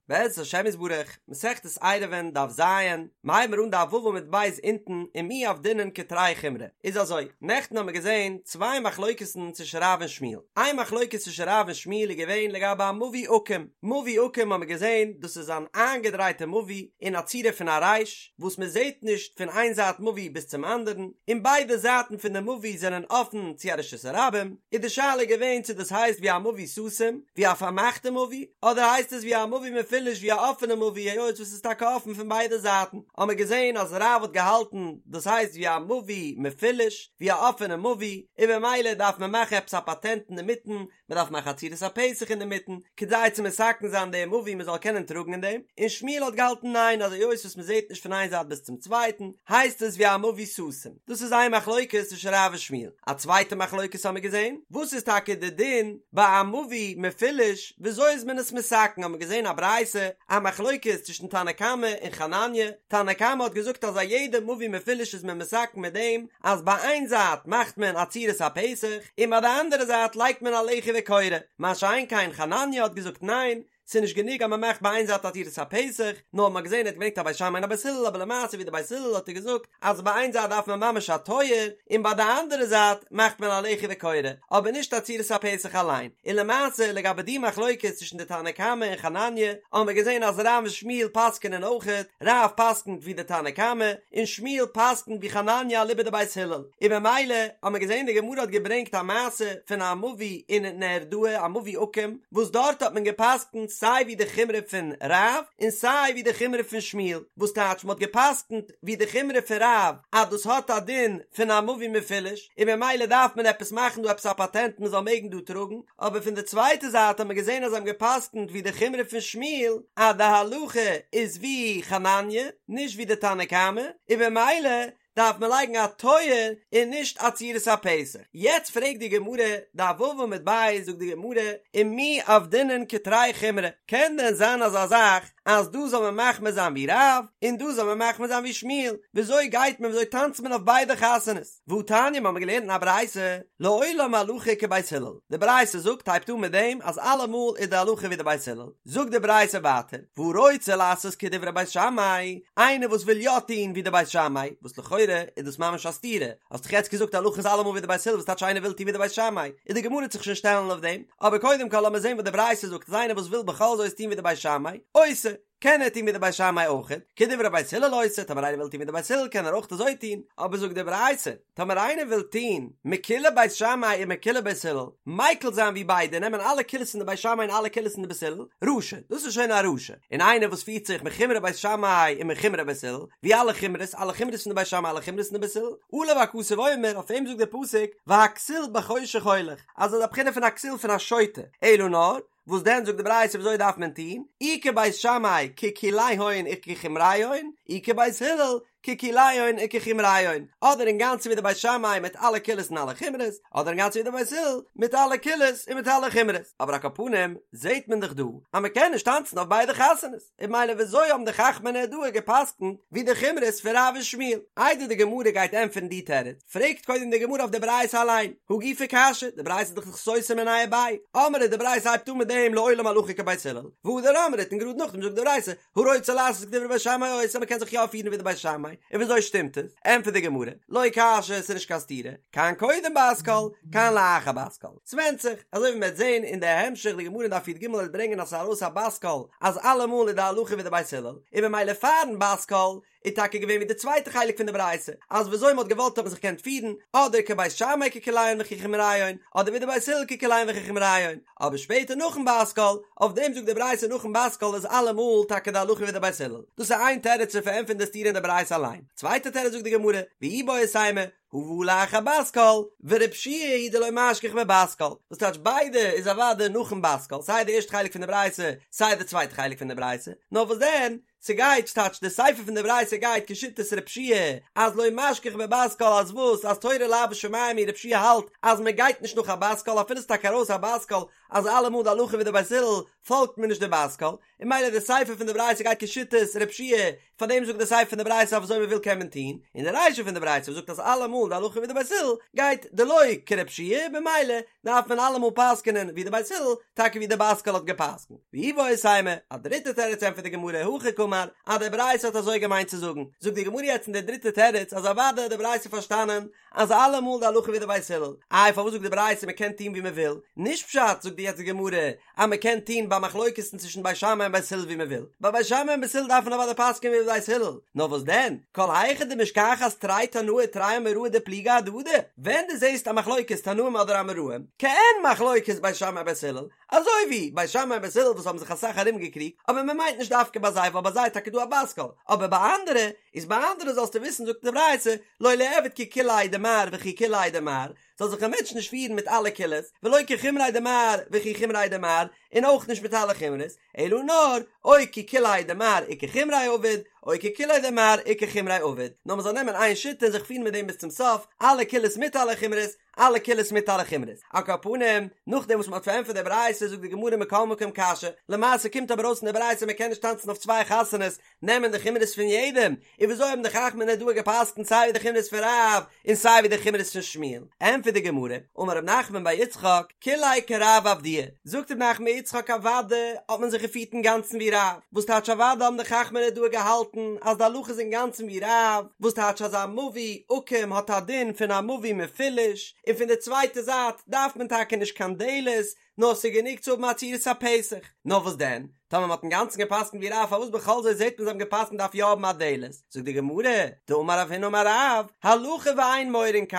בעזרת השם יתברך, מסכת עירובין דף ז, מ'הייבן מיר אן דף ו' עמוד ב' אונטן, ומי עבדינן כתרי חומרי. איז אזוי, נעכטן האבן מיר געזען צוויי מחלוקת'ן צווישן רב און שמואל. איין מחלוקת צווישן רב און שמואל איז געווען לגבי א מבוי עקום. מבוי עקום האבן מיר געזען, דאס איז אן איינגעדרייטע מבוי אין א צורה פון א רייש, וואס מען זעט נישט פון איין זייט מבוי ביז צום אנדערן, און ביידע זייטן פון די מבוי זענען אפן צו א רשות הרבים, איז די שאלה געווען צו דאס הייסט ווי א מבוי סתום, ווי א פארמאכטע מבוי, אדער הייסט עס ווי א מבוי מפולש ווי א אפענע מבוי היות וואס איז טאקע אפן פון ביידע זייטן, האמער געזען אז רב האט געהאלטן דאס הייסט ווי א מבוי מפולש, ווי א אפענע מבוי, און במילא דארף מען מאכן עפעס א פאטענט אינדערמיטן, מען דארף מאכן א צורת הפתח אינדערמיטן, כדי צו מתקן זיין דעם מבוי מען זאל קענען טראגן אין דעם, און שמואל האט געהאלטן ניין אז היות וואס מען זעט נישט פון איין זייט ביז צום צווייטן, הייסט עס ווי א מבוי סתום. דאס איז איין מחלוקת צווישן רב און שמואל. א צווייטע מחלוקת האמיר געזען, וואס איז טאקע די דין ביי א מבוי מפולש, וויאזוי איז מען עס מתקן, האמיר געזען א ברייתא, א מחלוקת צווישן תנא קמא און חנניה, תנא קמא האט געזאגט אז א יעדע מבוי מפולש איז מען מתקן מיט דעם אז ביי איין זייט מאכט מען א צורת הפתח און ביי די אנדערע זייט לייגט מען א לחי וקורה, מה שאין כן חנניה האט געזאגט ניין, ס'איז נישט גענוג אז מען מאכט ביי איין זייט א צורת הפתח, נאר מ'האט געזען ער האט געברענגט א בית שמאי און א בית הלל אבער למעשה ווי די בית הלל האט ער געזאגט אז ביי איין זייט דארף מען ממש א טויער און ביי די אנדערע זייט מאכט מען א לחי וקורה אבער נישט א צורת הפתח אליין, און למעשה לגבי די מחלוקת צווישן די תנא קמא און חנניה האבן מיר געזען אז רב און שמואל פסק'ענען אויכעט, רב פסק'נט ווי די תנא קמא און שמואל פסק'נט ווי חנניה אליבא דבית הלל, און במילא האבן מיר געזען די גמרא האט געברענגט א מעשה פון א מבוי אין נהרדעא א מבוי עקום וואס דארט האט מען געפסק'נט סיי ווי די חומרא פון רב און סיי ווי די חומרא פון שמואל, וואס טייטש מען האט געפסק'נט ווי די חומרא פון רב אז דאס האט א דין פון א מבוי מפולש און במילא דארף מען עפעס מאכן דא עפעס א פאטענט מען זאל מעגן דא טראגן, אבער פון די צווייטע זייט האט מען געזען אז זיי האבן געפסק'נט ווי די חומרא פון שמואל אז די הלכה איז ווי חנניה נישט ווי די תנא קמא און במילא דארף מען לייגן א טויער און נישט א צורת הפתח. יעצט פרעגט די גמרא, דף ו' עמוד ב', זאגט די גמרא, ומי עבדינן כתרי חומרי, קען דען זיין אזא זאך אז דא זאל מען מחמיר זיין ווי רב און דא זאל מען מחמיר זיין ווי שמואל, וויאזוי גייט מען וויאזוי טאנצט מען אויף ביידע חתונות? והתניא מ'האמיר געלערנט אין א ברייתא, לעולם הלכה כבית הלל, די ברייתא זאגט הייבט אן מיט דעם אז אלעמאל איז די הלכה ווי די בית הלל, זאגט די ברייתא ווייטער, והרוצה לעשות כדברי בית שמאי, איינער וואס וויל יא טון ווי די בית שמאי, וואס לכאורה איז דאס ממש א סתירה, האסט דאך יעצט געזאגט הלכה איז אלעמאל ווי די בית הלל וואס טייטש איינער וויל טון ווי די בית שמאי, איז די גמרא וועט זיך שוין שטעלן אויף דעם, אבער קודם כל לאמיר זען וואס די ברייתא זאגט אז איינער וואס וויל בכל זאת טון ווי די בית שמאי, עושה, קען ער טון ווי די בית שמאי אויכעט, כדברי בית הלל עושה, טאמער איינער וויל טון ווי די בית הלל קען ער אויך אזוי טון, אבער זאגט די ברייתא, טאמער איינער וויל טון מקולי בית שמאי ומקולי בית הלל, מיקל זיין ווי ביידע, נעמען אלע קולות פון די בית שמאי און אלע קולות פון די בית הלל, רשע, דאס איז שוין א רשע, און איינער וואס פירט זיך מחומרי בית שמאי ומחומרי בית הלל, ווי אלע חומרות, אלע חומרות פון די בית שמאי אלע חומרות פון די בית הלל, עליו הכתוב אומר, אויף אים זאגט דער פסוק, והכסיל בחושך הולך, אז ער איז א בחינה פון א כסיל פון א שוטה, אלא נאר, וואס דען זאגט די ברייתא וויאזוי דארף מען טון, אי כבית שמאי כקוליהון וכחומריהון, אי כבית הלל כקוליהון וכחומריהון, אדער אינגאנצן ווי די בית שמאי מיט אלע קולות און אלע חומרות, אדער אינגאנצן ווי די בית הלל מיט אלע קולות און מיט אלע חומרות. אבער על כל פנים זעט מען דאך דא אז מען קען נישט טאנצן אויף ביידע חתונות, און ממילא וויאזוי האבן די חכמי נהרדעא גע'פסק'נט ווי די חומרות פון רב און שמואל? איידער די גמרא גייט ענטפערן די תירוץ, פרעגט קודם די גמרא אויף די ברייתא אליין, הא גופא קשיא, די ברייתא איז דאך סותר מיניה וביה, אמרת די ברייתא הייבט אן מיט דעם לעולם הלכה כבית הלל, והדר אמרת און גראד נאכדעם זאגט די ברייתא, הרוצה לעשות כדברי בית שמאי עושה מ'קען זיך יא פירן ווי די בית שמאי, און וויאזוי שטימט עס? ענטפערט די גמרא, לא קשיא ס'איז נישט קיין סתירה, כאן קודם בת קול, כאן לאחר בת קול, ס'ווענדט זיך, אזוי ווי מ'וועט זען אין די המשך די גמרא אין דף י"ג וועט ברענגען אז ס'איז ארויס א בת קול אז אלעמאל איז די הלכה ווי די בית הלל, און ממילא פארן בת קול איז טאקע געווען ווי די צווייטע חלק פון די ברייתא, אז וויאזוי מ'האט געוואלט האט מען זיך געקענט פירן, אדער כבית שמאי כקוליהון וכחומריהון, אדער ווי די בית הלל כקוליהון וכחומריהון, אבער שפעטער נאכן בת קול, אויף דעם זאגט די ברייתא נאכן בת קול איז אלעמאל טאקע די הלכה ווי די בית הלל. דאס איז איין תירוץ צו פארענטפערן די סתירה אין די ברייתא אליין. צווייטע תירוץ זאגט די גמרא, ואיבעית אימא, הא והא לאחר בת קול, ורבי יהושע היא דלא משגיח בבת קול, וואס טייטש ביידע איז אוודאי נאכן בת קול, סיי די ערשטע חלק פון די ברייתא, סיי די צווייטע חלק פון די ברייתא, נאר וואס דען? ס'גייט, ס'טייטש די סיפא פון די ברייתא גייט כשיטת רב שיע אז לא משכח בבת קול אז וואס אז תורה לאו בשמים היא רב שיע האלט אז מ'גייט נישט נאך א בת קול אפילו ס'טאקע ארויס א בת קול אז אלעמאל די הלכה ווי די בית הלל פאלגט מען נישט די בת קול און ממילא די סיפא פון די ברייתא גייט כשיטת רב שיע פאר דעם זאגט די סיפא פון די ברייתא אויף אזוי מען וויל קען מען טון, און די רישא פון די ברייתא וואס זאגט אז אלעמאל די הלכה ווי די בית הלל גייט דלא כרב שיע במילא דארף מען אלעמאל פסק'נען ווי די בית הלל, טאקע ווי די בת קול האט געפסק'נט. ואיבעית אימא, א דריטע תירוץ ענטפערט די גמרא, הכי קאמר, אז די ברייתא האט אזוי געמיינט צו זאגן, זאגט די גמרא יעצט אין די דריטע תירוץ אז אוודאי האט די ברייתא פארשטאנען אז אלעמאל די הלכה ווי די בית הלל, איי פארוואס זאגט די ברייתא מען קען טון ווי מען וויל, נישט פשט זאגט יעצט די גמרא אז מען קען טון ביי מחלוקת'ן צווישן בית שמאי און בית הלל ווי מען וויל, ביי בית שמאי און בית הלל דארף מען אוודאי פסק'ען ווי בית הלל, נאר וואס דען, כל היכא דמשכחת תרי תנאי תרי אמוראי דפליגי אהדדי, ווען דו זעסט א מחלוקת תנאים אדער אמוראים, כעין מחלוקת בית שמאי בית הלל, אזוי ווי בית שמאי און בית הלל וואס האבן זיך אסאך ארום געקריגט, אבער מען מיינט נישט דווקא ביי זיי ווייל ביי זיי איז טאקע דא א בת קול, אבער ביי אנדערע, איז ביי אנדערע זאלסטו וויסן זאגט די ברייתא, לא ליעביד כי קוליה דמר וכי קוליה דמר, זאל זיך א מענטש נישט פירן מיט אלע קולות, ולא כחומריה דמר וכי חומריה דמר, און אויך נישט מיט אלע חומרות, אלא נאר, או כי קוליה דמר וכחומריה עביד, או כי קוליה דמר וכחומריה עביד, נאר מען זאל נעמען איין שיטה און זיך פירן מיט דעם ביז צום סוף, אלע קולות מיט אלע חומרות, אלע קולות מיט אלע חומרות. על כל פנים, נאכדעם וואס מען האט פארענטפערט די ברייתא זאגט די גמרא מכל מקום קשיא, למעשה קומט אבער אויס אין די ברייתא מען קען נישט טאנצן אויף צוויי חתונות, נעמען די חומרות פון יעדעם, און וויאזוי האבן די חכמי נהרדעא געפסקנט סיי ווי די חומרות פון רב און סיי ווי די חומרות פון שמואל? ענטפערט די גמרא, אמר רב נחמן בר יצחק, כוליה כרב עבדוה, זאגט רב נחמן בר יצחק אוודאי האט מען זיך געפירט אינגאנצן ווי רב, וואס טייטש אוודאי האבן די חכמי נהרדעא געהאלטן אז די הלכה איז אינגאנצן ווי רב, וואס טייטש אז א מבוי עקום האט א דין פון א מבוי מפולש, און פון די צווייטע זייט דארף מען טאקע נישט קיין דלת, נאר ס'איז גענוג צו האבן א צורת הפתח. נאר וואס דען? טאמער מ'האט אינגאנצן גע'פסק'נט ווי רב פארוואס בכל זאת זעט מען זיי האבן גע'פסק'נט דארף יא האבן א דלת? זאגט די גמרא, דאמר רב הונא אמר רב, הלכה ואין מורין כן,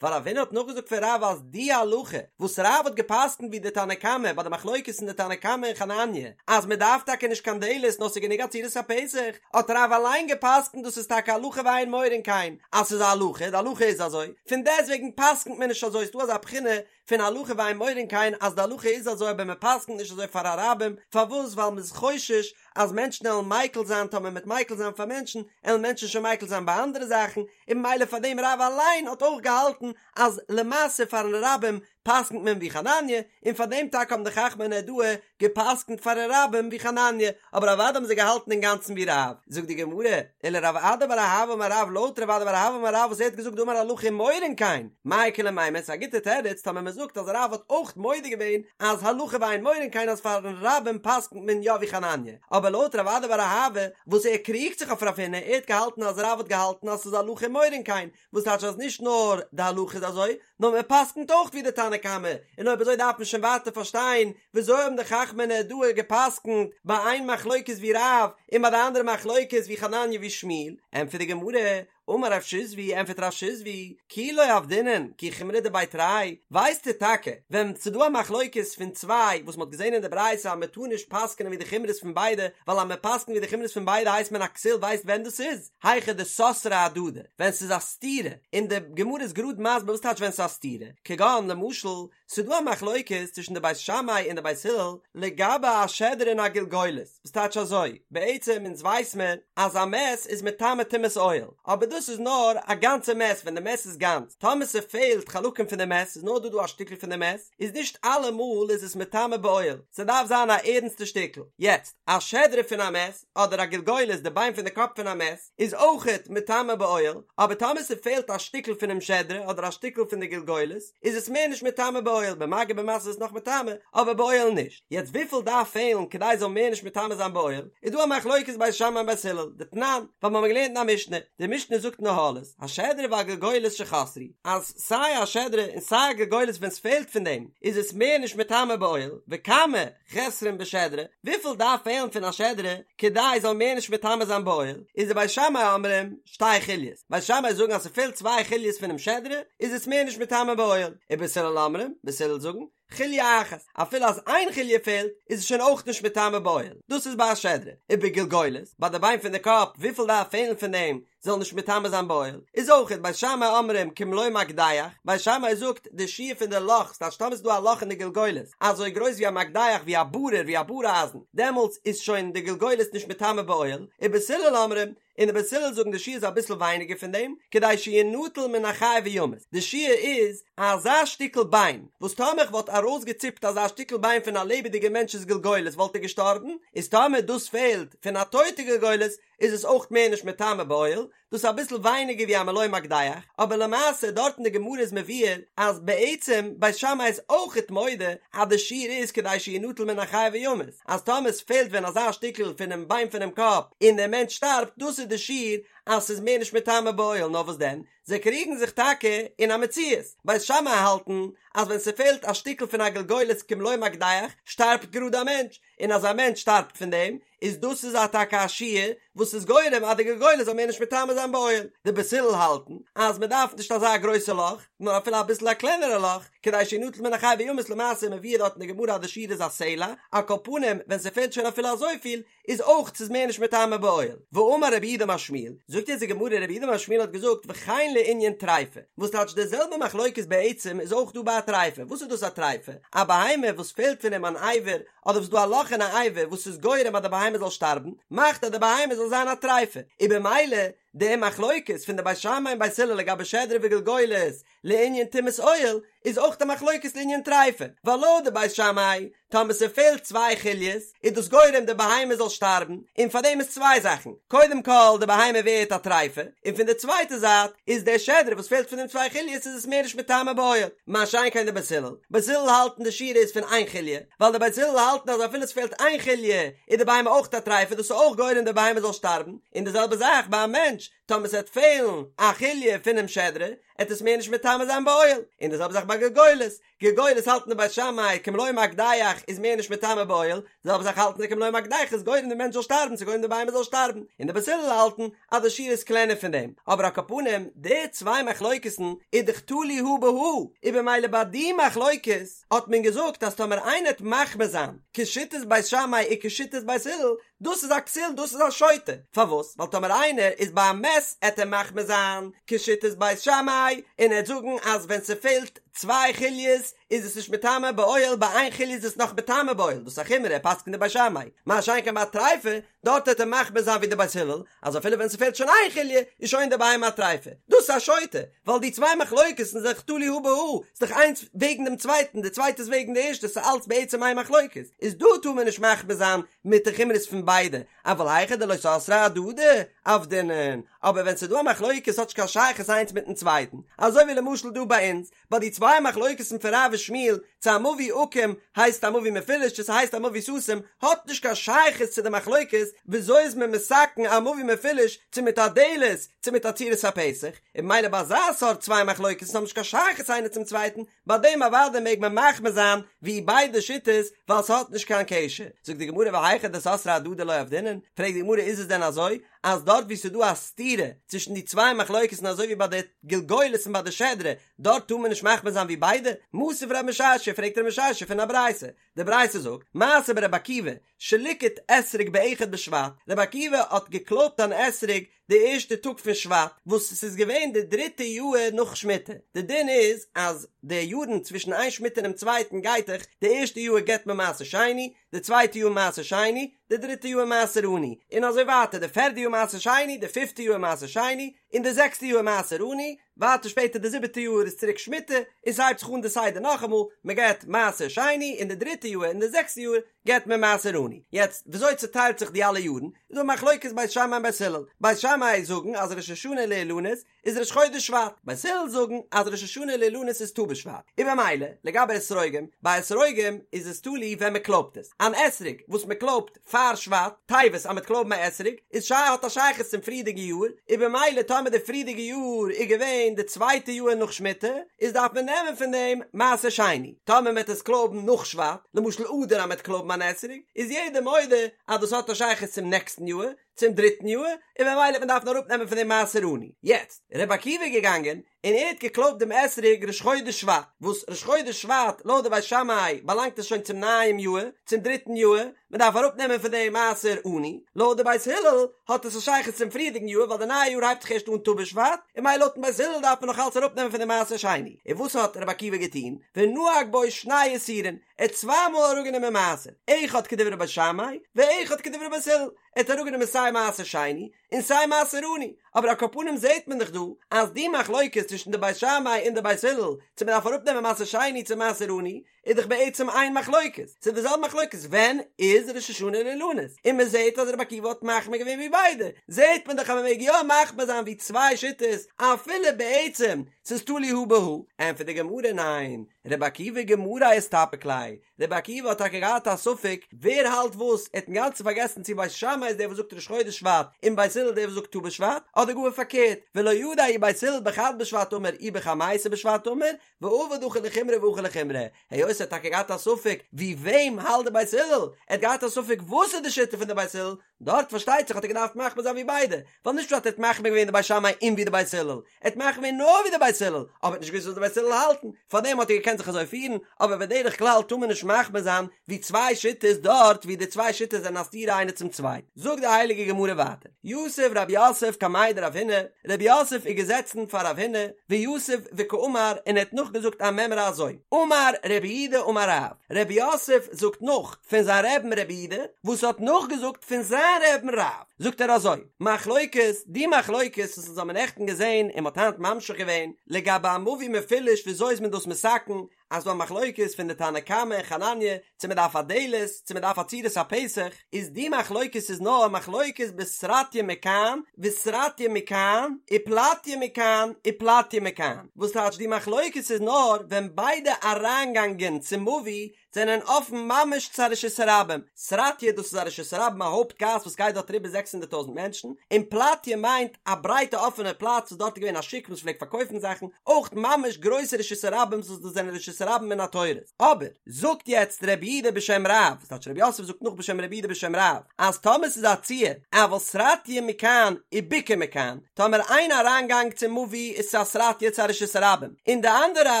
ווייל רב הונא האט נאכגעזאגט פון רב אז די הלכה וואס רב האט גע'פסק'נט ווי די תנא קמא ביי די מחלוקת אין די תנא קמא און חנניה אז מ'דארף טאקע נישט קיין דלת נאר ס'איז גענוג א צורת הפתח, האט רב אליין גע'פסק'נט דאס איז טאקע הלכה ואין מורין כן אז ס'איז א הלכה, די הלכה איז אזוי, פון דעסטוועגן פסק'נט מען נישט אזוי, ס'דא אזא בחינה פון הלכה ואין מורין כן אז די הלכה איז אזוי אבער מען פסק'נט נישט אזוי פאר א רבים, פארוואס ווייל מען איז חושש אז מענטשן עלן מיקל זיין טאמער מ'עט מיקל זיין פאר מענטשן עלן מענטשן שוין מיקל זיין ביי אנדערע זאכן און ממילא פאר דעם רב אליין האט אויך געהאלטן אז למעשה פארן רבים פסק'נט מען ווי חנניה און פאר דעם טאקע האבן די חכמי נהרדעא געפסקנט פארן רבים ווי חנניה, אבער אוודאי האבן זיי געהאלטן אינגאנצן ווי רב, זאגט די גמרא, ולרב אדא בר אהבה אמר רב לויט רב אדא בר אהבה אמר רב וואס ער האט געזאגט דאמר הלכה ומורין כן, מאי איכא למימר, ס'איז א גוטע תירוץ טאמער מען זאגט אז רב האט אויך מודה געווען אז הלכה ואין מורין כן אז פארן רבים פסקנט מען יא ווי חנניה, אבער לויט רב אדא בר אהבה וואס ער קריגט זיך אויף רב הונא ער האט געהאלטן אז רב האט געהאלטן אז ס'איז הלכה ומורין כן, וואס טייטש אז נישט נאר די הלכה איז אזוי, נאר מען פסק'נט אויך ווי די תנא קמא, און אויב אזוי דארף מען שוין ווייטער פארשטיין וויאזוי האבן די חכמי נהרדעא געפסק'נט ביי איין מחלוקת ווי רב און ביי די אנדערע מחלוקת ווי חנניה ווי שמואל, ענטפערט די גמרא, אמר רב שיזבי, ענטפערט רב שיזבי, כי לא עבדינן כי חומרא דבי תרי, ווייסטו טאקע ווען ס'דא א מחלוקת פון צוויי וואס מ'האט געזען אין די ברייתא אז מ'טאר נישט פסק'נען ווי די חומרות פון ביידע, ווייל אז מ'פסק'נט ווי די חומרות פון ביידע הייסט מען א כסיל ווייסט ווען דאס איז? היכא דסתרי אהדדי, ווען ס'איז א סתירה, און די גמרא איז גראד מסביר וואס טייטש ווען ס'איז א סתירה, כגון למשל, ס'איז דא א מחלוקת צווישן די בית שמאי און די בית הלל לגבי א שדרה און א גלגולת, וואס טייטש אזוי, בעצם אונז ווייס מיר אז א מת איז מטמא טומאת אוהל, אבער דאס איז נאר א גאנצע מת ווען די מת איז גאנץ, טאמער ס'פעלט חלקים פון די מת, ס'איז נאר דא דא א שטיקל פון די מת, איז נישט אלעמאל איז עס מטמא באוהל, ס'דארף זיין א ערנסטע שטיקל, יעצט, א שדרה פון א מת, אדער א גלגולת די ביין פון די קאפ פון א מת איז אויכעט מטמא באוהל, אבער טאמער ס'פעלט א שטיקל פונעם שדרה אדער א שטיקל פון די גלגולת איז עס מער נישט מטמא באוהל, במגע במשא איז נאך מטמא אבער באוהל נישט, יעצט וויפיל דארף פעלן כדי ס'זאל מער נישט מטמא זיין באוהל, איז דא א מחלוקת בית שמאי און בית הלל, דתנן, ווייל מ'האמיר געלערנט אין א משנה, די משנה זאגט אין אהלות, השדרה והגלגולת שחסרו, אז סיי א שדרה און סיי א גלגולת ווען ס'פעלט פון דעם איז עס מער נישט מטמא באוהל, וכמה, חסרון בשדרה, וויפיל דארף פעלן פון א שדרה כדי זאל מער נישט מטמא זיין באוהל, איז די בית שמאי אומרים שתי חוליות, בית שמאי זאגן אז ס'פעלט צוויי חוליות פונעם שדרה איז עס מער נישט מטמא באוהל, ובית הלל אומרים, בית הלל זאגן, חוליא אחת, אפילו אז איין חוליא פעלט איז עס שוין אויך נישט מטמא באוהל, דאס איז ביי א שדרה, ובגולגולת, ביי די ביין פון די קאפ, וויפיל דארף פעלן פון דעם זאל נישט מטמא זיין באוהל, איז אויכעט בית שמאי אומרים כמלוא מקדח, בית שמאי זאגט די שיעור פון די לאך, ס'טייטש טאמער ס'איז דא א לאך אין די גולגולת אזוי גרויס ווי א מקדח ווי א ברור ווי א באר אייזן, דעמאלטס איז שוין די גולגולת נישט מטמא באוהל, ובית הלל אומרים, און די בית הלל זאגן די שיעור איז אביסל ווייניגער פון דעם, כדי שינטל מן החי וימות, די שיעור איז אזא שטיקל ביין, וואס טאמער איך וואלט ארויסגעציפט אזא שטיקל ביין פון א לעבעדיגע מענטש'ס גולגולת וואלט ער געשטארבן, איז טאמער דאס פעלט פון א טויטע גולגולת איז עס אויך מער נישט מטמא באוהל, דאס איז אביסל ווייניגער ווי א מלא מקדח, אבער למעשה דארט אין די גמרא איז מבואר אז בעצם בית שמאי איז אויכעט מודה אז די שיעור איז כדי שינטל מן החי וימות, אז טאמער עס פעלט ווען אזא שטיקל פונעם ביין פונעם קאפ און דער מענטש שטארבט דאס איז די שיעור אז ס'איז מער נישט מטמא באוהל נאר וואס דען זיי קריגן זיך טאקע אין א מציאות, בית שמאי האלטן אז ווען ס'פעלט א שטיקל פון א גולגולת כמלוא מקדח שטארבט גראד א מענטש, און אז א מענטש שטארבט פון דעם איז דאס איז א טאקע א שיעור וואס איז גורם אז די גולגולת זאל מער נישט מטמא זיין באוהל. די בית הלל האלטן אז מען דארף נישט אזא גרויסע לאך, נאר אפילו אביסל א קלענערע לאך, כדי שינטל מן החי וימות למעשה מבואר דארט אין די גמרא אז די שיעור איז א סלע, על כל פנים ווען ס'פעלט שוין אפילו אזויפיל איז אויך ס'איז מער נישט מטמא באוהל. ואמר רב יהודה אמר שמואל, זאגט יעצט די גמרא רב יהודה אמר שמואל האט געזאגט וכן לענין טריפה, וואס טייטש די זעלבע מחלוקת בעצם איז אויך דא ביי א טריפה, וואס איז דאס א טריפה? א בהמה וואס פעלט פון אים אן אבר אדער וואס דא א לאך אין א אבר וואס איז גורם אז די בהמה זאל שטארבן, מאכט אז די בהמה זאל זיין א טריפה, און במילא די מחלוקת פון די בית שמאי און בית הלל לגבי שדרה וגולגולת לענין טומאת אוהל, איז אויך די מחלוקת לענין טריפה, ווייל לויט די בית שמאי, טאמער ס'פעלט צוויי חוליות, איז דאס גורם די בהמה זאל שטארבן, און פאר דעם איז צוויי זאכן, קודם כל די בהמה ווערט א טריפה, און פון די צווייטע זייט איז דער שדרה וואס פעלט פון דעם צוויי חוליות איז עס מער נישט מטמא באוהל, מה שאין כן די בית הלל, בית הלל האלטן די שיעור איז פון איין חוליא, ווייל די בית הלל האלטן אז אפילו עס פעלט איין חוליא איז די בהמה אויך א טריפה דאס איז אויך גורם די בהמה זאל שטארבן, און די זעלבע זאך ביי א מענטש, טאמער עס וועט פעלן א חוליא פונעם שדרה, עט עס מער נישט מטמא זיין באוהל, און די זעלבע זאך ביי גולגולת, גולגולת האלטן די בית שמאי כמלוא מקדח איז מער נישט מטמא באוהל, די זעלבע זאך האלטן זיי כמלוא מקדח איז גורם די מענטש זאל שטארבן ס'איז גורם די בהמה זאל שטארבן, און די בית הלל האלטן אז די שיעור איז קלענער פון דעם, אבער על כל פנים די צוויי מחלוקת'ן איז דאך תלוי הא בהא, און במילא ביי די מחלוקת האט מען געזאגט אז טאמער איינער העט מחמיר זיין כשיטת בית שמאי און כשיטת בית הלל, דאס איז א כסיל דאס איז א שוטה, פארוואס? ווייל טאמער איינער איז ביי א מת עט ער מחמיר זיין כשיטת בית שמאי און ער עט זאגן אז ווען ס'פעלט צוויי חוליות איז עס נישט מטמא באוהל ביי איין חוליא איז עס נאך מטמא באוהל דאס איז א חומרא ער פסק'נט ווי בית שמאי מה שאין כן ביי א טריפה דארט עט ער מחמיר זיין ווי די בית הלל אז אפילו ווען ס'פעלט שוין איין חוליא איז שוין די בהמה א טריפה דאס איז א שוטה ווייל די צוויי מחלוקת'ן זענען דאך תלוי הא בהא ס'איז דאך איינס וועגן דעם צווייטן די צווייטע איז וועגן די ערשטע ס'איז אלץ בעצם איין מחלוקת איז דא טאר מען נישט מחמיר זיין מיט די חומרות פון ביידע אבל היכא דלא סתרי אהדדי עבדינן אבער ווען ס'איז דא א מחלוקת האט נישט קיין שייכות איינס מיטן צווייטן אזוי ווי למשל דא ביי אונז ביי די צוויי מחלוקת'ן פון רב ושמואל צו א מבוי עקום הייסט א מבוי מפולש צו ס'הייסט א מבוי סתום האט נישט קיין שייכות צו די מחלוקת וויאזוי איז מען מתקן א מבוי מפולש צו מיט א דלת צו מיט א צורת הפתח און ממילא ביי אזא סארט צוויי מחלוקת'ן האבן נישט קיין שייכות איינער צום צווייטן ביי דעם אוודאי מעג מען מחמיר זיין ווי ביידע שיטות ווייל ס'האט נישט קיין קשר. זאגט די גמרא והיכא דסתרי אהדדי לא עבדינן, פרעגט די גמרא איז עס דען אזוי אז דארט ווי ס'איז דא א סתירה צווישן די צוויי מחלוקת'ן אזוי ווי ביי די גולגולת און ביי די שדרה דארט טאר מען נישט מחמיר זיין ווי ביידע? מתיב רב משרשיא פרעגט רב משרשיא פון א ברייתא, די ברייתא זאגט, מעשה ברבי עקיבא, שליקט אתרוג באחד בשבט, רבי עקיבא האט געקלויבט אן אתרוג די ערשטע טאג פון שבט, וואס ס'איז געווען די דריטע יאהר נאך שמיטה, די דין איז אז די יארן צווישן איין שמיטה און דעם צווייטן גייט דאך, די ערשטע יאהר געבט מען מעשר שני, די צווייטע יאר מעשר שני, די דריטע יאר מעשר עני, און אזוי ווייטער, די פערדע יאר מעשר שני, די פיפטע יאר מעשר שני, און די זעקסטע יאר מעשר עני, ווייטער שפעטער די זיבעטע יאר איז צוריק שמיטה, און ס'הייבט זיך אן די סדר נאכאמאל, מ'געבט מעשר שני אין די דריטע יאר און די זעקסטע יאר געבט מען מעשר עני. יעצט וויאזוי צוטיילט זיך די אלע יארן, איז דא מחלוקת בית שמאי און בית הלל, בית שמאי זאגן אז ראש השנה לאילנות איז ראש חודש שבט, בית הלל זאגן אז ראש השנה לאילנות איז ט"ו בשבט, און במילא לגבי אתרוגים, ביי אתרוגים איז עס תלוי ווען מ'קלויבט עס, אן אתרוג וואס מ'קלויבט פאר שבט, טבת אז מ'וועט קלויבן א אתרוג, איז שייך האט א שייכות צום פריערדיגע יאר, און במילא טאמער די פריערדיגע יאר איז געווען די צווייטע יאר נאך שמיטה, איז דארף מען נעמען פון דעם מעשר שני. טאמער מ'וועט עס קלויבן נאך שבט, למשל אדר אז מ'וועט קלויבן אן אתרוג, איז יעדער מודה אז דאס האט א שייכות צום נעקסטן יאר, צום דריטן יאר, און ממילא וועט מען דארפן אראפנעמען פון דעם מעשר עני. יעצט, רבי עקיבא איז געגאנגען און ער האט געקלויבט דעם אתרוג ראש חודש שבט, וואס ראש חודש שבט לויט די בית שמאי באלאנגט עס שוין צום נייעם יאר, צום דריטן יאר, מען דארף אראפנעמען פון דעם מעשר עני, לויט די בית הלל האט עס א שייכות צום פריערדיגן יאר ווייל די נייע יאר הייבט זיך ערשט אן ט"ו בשבט, און ממילא לויטן בית הלל דארף מען נאך אלץ אראפנעמען פון דעם מעשר שני. און וואס האט רבי עקיבא געטון? ונהג בו שני עישורין, ער האט צוויי מאל אראפגענומען מעשר, אחד כדברי בית שמאי ואחד כדברי בית הלל, ער האט אראפגענומען סיי מעשר שני און סיי מעשר עני, אבער על כל פנים זעהט מען דאך דא אז די מחלוקת צווישן די בית שמאי און די בית הלל צו מען דארף אראפנעמען מעשר שני צו מעשר עני איז דאך בעצם איין מחלוקת, ס'איז די זעלבע מחלוקת ווען איז ראש השנה לאילנות, און מען זעהט אז רבי עקיבא האט מחמיר געווען ווי ביידע, זעהט מען דאך אז מען מעג יא מחמיר זיין ווי צוויי שיטות אפילו בעצם ס'איז תלוי הא בהא, ענטפערט די גמרא ניין, רבי עקיבא גמריה איסתפק ליה, רבי עקיבא האט טאקע געהאט א ספק ווער האלט וואס, ער האט אינגאנצן פארגעסן צו בית שמאי איז דער וואס זאגט ראש חודש שבט און בית הלל דער וואס זאגט ט"ו בשבט, אדער גאר פארקערט, ולא ידע אי בית הלל בחד בשבט אמור אי בחמיסר בשבט אמור, ועבד הכא לחומרא והכא לחומרא, היות ער האט טאקע געהאט א ספק ווי וועם האלט די בית הלל, ער האט געהאט א ספק וואס איז די שיטה פון די בית הלל, דארט פארשטייט זיך האט ער געדארפט מחמיר זיין ווי ביידע, ווייל נישט פשט ער האט מחמיר געווען די בית שמאי און ווי די בית הלל, ער האט מחמיר געווען נאר ווי די בית הלל, אבער ער האט נישט געוואוסט וואס די בית הלל האלטן, פארדעם האט ער געקענט זיך אזוי פירן, אבער בדרך כלל טאר מען נישט מחמיר זיין ווי צוויי שיטות דארט ווי די צוויי שיטות זענען א סתירה איינע צום צווייטן. זאגט די הייליגע גמרא ווייטער, יתיב רב יוסף קמיה דרב הונא, רב יוסף איז געזעצן פאר רב הונא, ויתיב וקאמר און ער האט נאכגעזאגט א מימרא אזוי, אמר רב יהודה אמר רב, רב יוסף זאגט נאך פון זיין רעבן רב יהודה וואס האט נאכגעזאגט פון זיין רעבן רב, זאגט ער אזוי, מחלוקת, די מחלוקת וואס אונז האבן נעכטן געזען און מ'האט היינט ממשיך געווען, לגבי א מבוי מפולש וויאזוי איז מען דאס מתקן, אז ס'דא א מחלוקת פון די תנא קמא און חנניה צו מען דארף א דלת צו מען דארף א צורת הפתח, איז די מחלוקת איז נאר מחלוקת בסרטיא מכאן וסרטיא מכאן ופלטיא מכאן ופלטיא מכאן, וואס טייטש די מחלוקת איז נאר ווען ביידע אריינגאנגען צום מבוי זענען אפן ממש צו א רשות הרבים, סרטיא דאס איז א רשות הרבים א הויפט גאס וואס גייט דארט אריבער זעקס הונדערט טויזנט מענטשן, און פלטיא מיינט א ברייטע אפענע פלאץ וואס דארט איז געווען א שוק וואס פלעגט פארקויפן זאכן, אויך ממש גרויסע רשות הרבים וואס דאס זענען רשות הרבים מן התורה. אבער, זאגט יעצט רב יהודה בשם רב, ס'טייטש רב יוסף זאגט נאך בשם רב יהודה בשם רב, אז טאמער ס'איז א ציור, אבל סרטיא מכאן ובקעה מכאן, טאמער איין אריינגאנג צום מבוי איז צו א סרטיא צו א רשות הרבים, און די אנדערע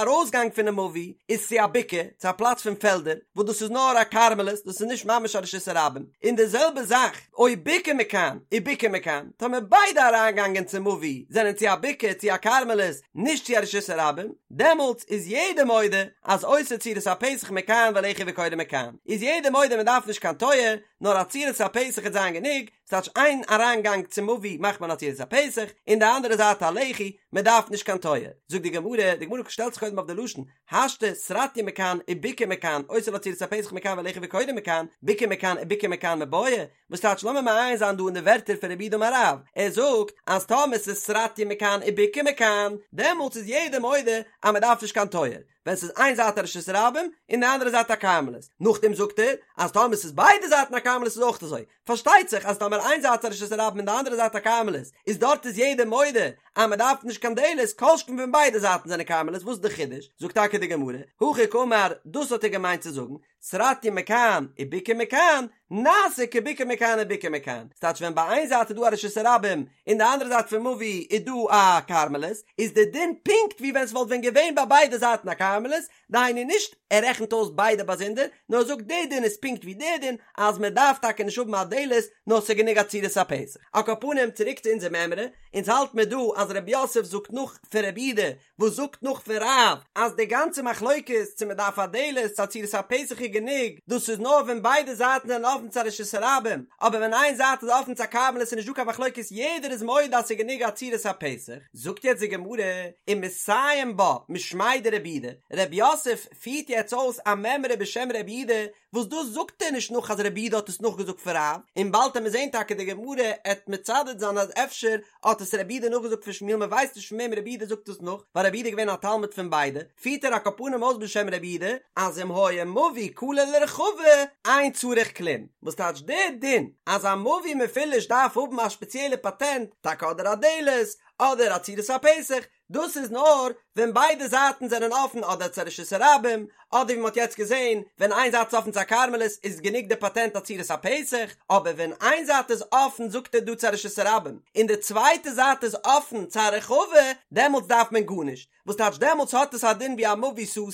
ארויסגאנג פונעם מבוי איז צו א בקעה, צו א פלאץ פון פעלדער, וואס דאס איז נאר א כרמלית, דאס איז נישט ממש א רשות הרבים, און די זעלבע זאך, או בקעה מכאן, ובקעה מכאן, טאמער ביידע אריינגאנגען צום מבוי זענען צו א בקעה צו א כרמלית, נישט צו א רשות הרבים, דעמאלטס איז יעדער מודה אז עושה צורת הפתח מכאן ולחי וקורה מכאן, איז יעדער מודה מען דארף נישט קיין טויער, נאר א צורת הפתח וועט זיין גענוג, ס'טייטש איין אריינגאנג צום מבוי מאכט מען א צורת הפתח, און די אנדערע זייט א לחי, מען דארף נישט קיין טויער. זאגט די גמרא, די גמרא שטעלט זיך קודם אויף די לשון, השתא סרטיא מכאן ובקעה מכאן, עושה לה צורת הפתח מכאן ולחי וקורה מכאן, בקעה מכאן ובקעה מכאן מיבעיא, וואס טייטש לאמיר מעיין זיין דא אין די ווערטער פון רב יהודה אמר רב, ער זאגט אז טאמער ס'איז סרטיא מכאן ובקעה מכאן, דעמאלטס איז יעדער מודה אז מען דארף נישט קיין טויער, ווען ס'איז איין זייט א רשות הרבים און די אנדערע זייט א כרמלית, נאכדעם זאגט ער אז טאמער ס'איז ביידע זייטן א כרמלית איז אויך אזוי, פארשטייט זיך אז טאמער איין זייט איז א רשות הרבים און די אנדערע זייט א כרמלית, איז דארט איז יעדער מודה אז מען דארף נישט קיין דלת, כל שכן ווען ביידע זייטן זענען כרמלית, וואס איז די חידוש? זאגט טאקע די גמרא, הכי קאמר, דאס האט ער געמיינט צו זאגן, סרטיא מכאן ובקעה מכאן, נעשה כבקעה מכאן ובקעה מכאן, ס'טייטש ווען ביי איין זייט איז דא א רשות הרבים און די אנדערע זייט פון מבוי איז דא א כרמלית, איז די דין פונקט ווי ווען ס'וואלט ווען געווען ביי ביידע זייטן א כרמלית, דהיינו נישט ער רעכנט אויס ביידע באזונדער, נאר ער זאגט די דין איז פונקט ווי די דין אז מען דארף טאקע נישט האבן א דלת נאר ס'איז גענוג א צורת הפתח. על כל פנים צוריק צו אונזער מימרא, אונז האלט מיר דא אז רב יוסף זאגט נאך פון רב יהודה וואס זאגט נאך פון רב אז די גאנצע מחלוקת צו מען דארף א דלת צו א צורת הפתח איז גענוג, דאס איז נאר ווען ביידע זייטן זענען אפן צו א רשות הרבים, אבער ווען איין זייט איז אפן צו א כרמלית איז נישט דא קיין מחלוקת יעדער איז מודה אז ס'איז גענוג א צורת הפתח, זאגט יעצט די גמרא ומסיים בה משמיה דרב יהודה, רב יוסף פירט יעצט אויס א מימרא בשם רב יהודה וואס דאס זאגט ער נישט נאך אז רב יהודה האט עס נאכגעזאגט פון רב, און באלד עמיר זעהן טאקע די גמרא עט מצדד זיין אז אפשר האט עס רב יהודה נאכגעזאגט פון שמואל מען ווייסט נישט פון וועם רב יהודה זאגט עס נאך ווייל רב יהודה איז געווען א תלמיד פון ביידע, פירט ער על כל פנים אויס בשם רב יהודה אז אם היה מבוי כלה לרחבה אין צריך כלום, וואס טייטש די דין אז א מבוי מפולש דארף האבן א שפעציעלע פאטענט, טאקע אדער א דלת אדער א צורת הפתח. דאס איז נאר ווען ביידע זייטן זענען אפן אדער צו רשות הרבים, אדער ווי מ'האט יעצט געזען ווען איין זייט איז אפן צו א כרמלית איז גענוג די פאטענט א צורת הפתח, אבער ווען איין זייט איז אפן זאגט ער דא צו א רשות הרבים און די צווייטע זייט איז אפן צו א רחבה דעמאלטס דארף מען גארנישט, וואס טייטש דעמאלטס האט עס א דין ווי א מבוי סתום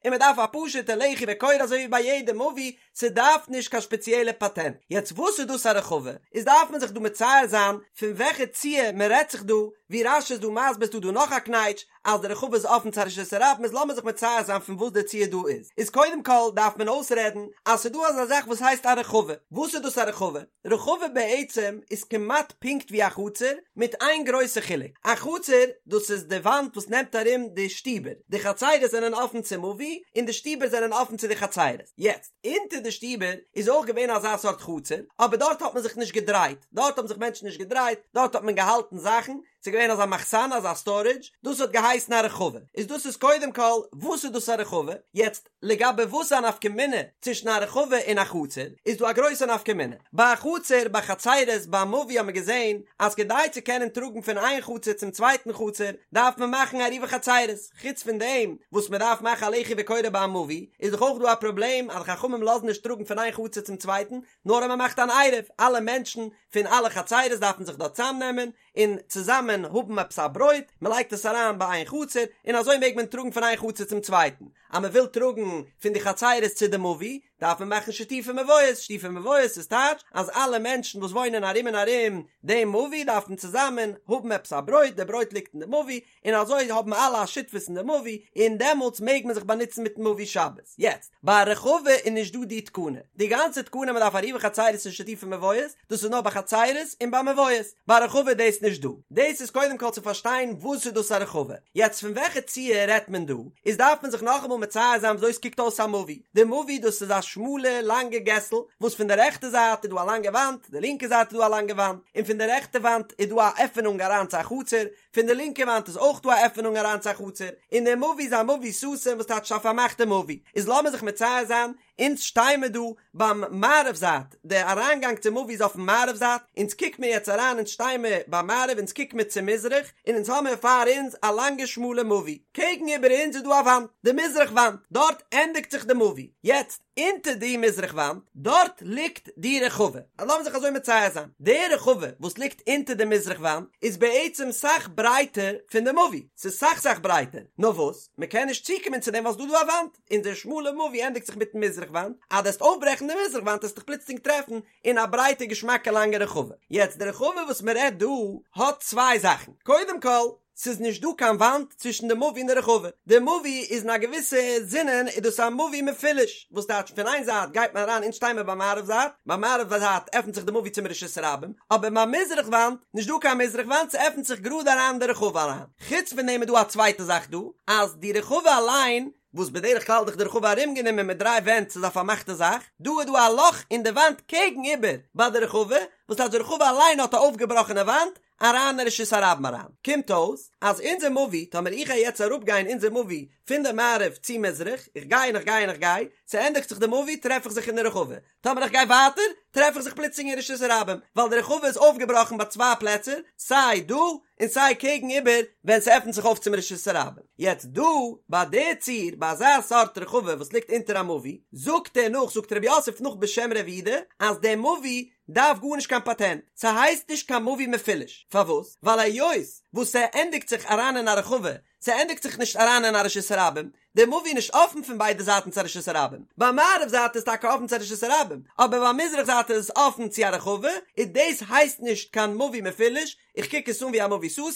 און מ'דארף א פשוטע לחי וקורה אזוי ווי ביי יעדע מבוי, ס'דארף נישט קיין שפעציעלע פאטענט. יעצט וואס איז דאס א רחבה? איז דארף מען זיך דא מצייר זיין פון וועלכע ציור מען רעדט זיך דא, ווי רש"י איז דא מסביר איז דא דא נאך א קנייטש אז די רחבה איז אפן צו א רשות הרבים איז לאמיר זיך מצייר זיין פון וואס די ציור דא איז. איז קודם כל דארף מען אויסרעדן אז ס'איז דא אזא זאך וואס הייסט א רחבה. וואס איז דאס א רחבה? רחבה בעצם איז כמעט פונקט ווי א חצר, מיט איין גרויסע חילוק, א חצר דאס איז די וואנט וואס נעמט ארום די שטיבער, די חצרות זענען אפן צום מבוי און די שטיבער זענען אפן צו די חצרות, יעצט אונטער די שטיבער איז אויך געווען אזא סארט חצר, אבער דארט האט מען זיך נישט געדרייט, דארט האבן זיך מענטשן נישט געדרייט, דארט האט מען געהאלטן זאכן, ס'איז געווען אזא מחסן אזא סטארעדזש, דאס האט געהייסן א רחבה, איז דאס איז קודם כל וואס איז דאס א רחבה, יעצט לגבי וואס איז א נפקא מינה צווישן א רחבה און א חצר, איז דא א גרויסע נפקא מינה. ביי א חצר, ביי חצרות, ביי א מבוי האט מען געזען אז כדי צו קענען טראגן פון איין חצר צום צווייטן חצר דארף מען מאכן עירובי חצרות. חוץ פון דעם וואס מען דארף מאכן א לחי וקורה ביי א מבוי, איז דאך אויך דא א פראבלעם אז חכמים לאזן נישט טראגן פון איין חצר צום צווייטן, נאר אז מען מאכט אן עירוב, אלע מענטשן פון אלע חצרות דארפן זיך דארט צאמנעמען, און צוזאמען האבן עפעס א ברויט, מען לייגט עס אריין ביי איין חצר, און אזוי מעג מען טראגן פון איין חצר צום צווייטן. אז מען וויל טראגן פון די חצרות צו די מבוי, דארף מען מאכן שיתופי מבואות, שיתופי מבואות איז טייטש אז אלע מענטשן וואס וואוינען ארום און ארום דעם מבוי דארפן צוזאמען האבן עפעס א ברויט, די ברויט ליגט אין די מבוי, און אזוי האבן אלע א שותפות אין די מבוי, און דעמאלטס מעג מען זיך באנוצן מיטן מבוי שבת. יעצט, ביי א רחבה איז נישט דא די תקנה. די גאנצע תקנה מען דארף עירובי חצרות און שיתופי מבואות, דאס איז נאר ביי חצרות און ביי מבואות. ביי רחבה איז דאס נישט דא. דאס איז קודם כל צו פארשטיין וואס איז דאס א רחבה. יעצט פון וועלכע ציור רעדט מען דא, איז דארף מען זיך נאכאמאל מצייר זיין וויאזוי עס קוקט אויס א מבוי. די מבוי דאס איז א שמאלע לאנגע געסל, וואס פון די רעכטע זייט איז דא א לאנגע וואנט, די לינקע זייט איז דא א לאנגע וואנט, און פון די רעכטע וואנט איז דא א עפענונג אריין צו א חצר, פון די לינקע וואנט איז אויך דא א עפענונג אריין צו א חצר, און דער מבוי איז א מבוי סתום וואס טייטש א פארמאכטע מבוי, איז לאמיר זיך מצייר זיין, אונז שטיי מיר דא ביים מערב זייט, די אריינגאנג צום מבוי איז אויפן מערב זייט, אונז קוק מיר יעצט אריין אונז שטיי מיר ביים מערב אונז קוק מיר צו מזרח, און אונז האמיר פאר אונז א לאנגע שמאלע מבוי, קעגן איבער אונז איז דא א וואנט, די מזרח וואנט, דארט ענדיגט זיך די מבוי, יעצט אונטער די מזרח וואנט, דארט ליגט די רחבה. אז לאמיר זיך אזוי מצייר זיין, די רחבה וואס ליגט אונטער די מזרח וואנט איז בעצם סאך ברייטער פון די מבוי, ס'איז סאך סאך ברייטער, נאר וואס, מ'קען נישט צוקומען צו דעם ווייל ס'דא דא א וואנט, און די שמאלע מבוי ענדיגט זיך מיטן מזרח וואנט, אז דו וועסט אויפברעכן די מזרח וואנט וועסטו דיך פלוצלינג טרעפן אין א ברייטע געשמאקע לאנגע רחבה. יעצט די רחבה וואס מ'רעדט דא האט צוויי זאכן, קודם כל, ס'איז נישט דא קיין וואנט צווישן די מבוי און די רחבה, די מבוי איז אין א געוויסע זינען איז דאס א מבוי מפולש, וואס טייטש פון איין זייט גייט מען אריין אונז שטיי מיר ביים מערב זייט, ביים מערב זייט עפנט זיך די מבוי צום רשות הרבים, אבער ביים מזרח וואנט, נישט דא קיין מזרח וואנט ס'עפנט זיך גראד אריין אין די רחבה אריין, חוץ פון דעם איז דא א צווייטע זאך דא, אז די רחבה אליין, וואס בדרך כלל איז דאך די רחבה ארומגענומען מיט דריי ווענט ס'איז א פארמאכטע זאך, דא איז דא א לאך אין די וואנט קעגן איבער ביי די רחבה, וואס טייטש די רחבה אליין האט א אויפגעבראכענע וואנט, אריין אין רשות הרבים אריין. קומט אויס אז אונזער מבוי, טאמער איך גיי יעצט אראפגיין אונזער מבוי פון די מערב צו מזרח, איך גיי און איך גיי און איך גיי, ס'ענדיגט זיך די מבוי טרעף איך זיך אין די רחבה, טאמער איך גיי ווייטער טרעף איך זיך פלוצלינג אין רשות הרבים, ווייל די רחבה איז אויפגעבראכן ביי צוויי פלעצער, סיי דא און סיי קעגן איבער ווען ס'עפנט זיך אויף צום רשות הרבים. יעצט דא ביי די ציור ביי אזא סארט רחבה וואס ליגט אונטער א מבוי, זאגט ער נאך, זאגט רב יוסף נאך בשם רב יהודה, אז די מבוי דארף גארנישט קיין פאטענט, ס'הייסט נישט קיין מבוי מפולש, פארוואס? ווייל היות וואס ס'ענדיגט זיך אריין אין א רחבה, ס'ענדיגט זיך נישט אריין אין א רשות הרבים, די מבוי איז נישט אפן פון ביידע זייטן צו א רשות הרבים, ביי מערב זייט איז טאקע אפן צו א רשות הרבים, אבער ביי מזרח זייט איז עס אפן צו א רחבה, און דאס הייסט נישט קיין מבוי מפולש, איך קוק עס אן ווי א מבוי סתום,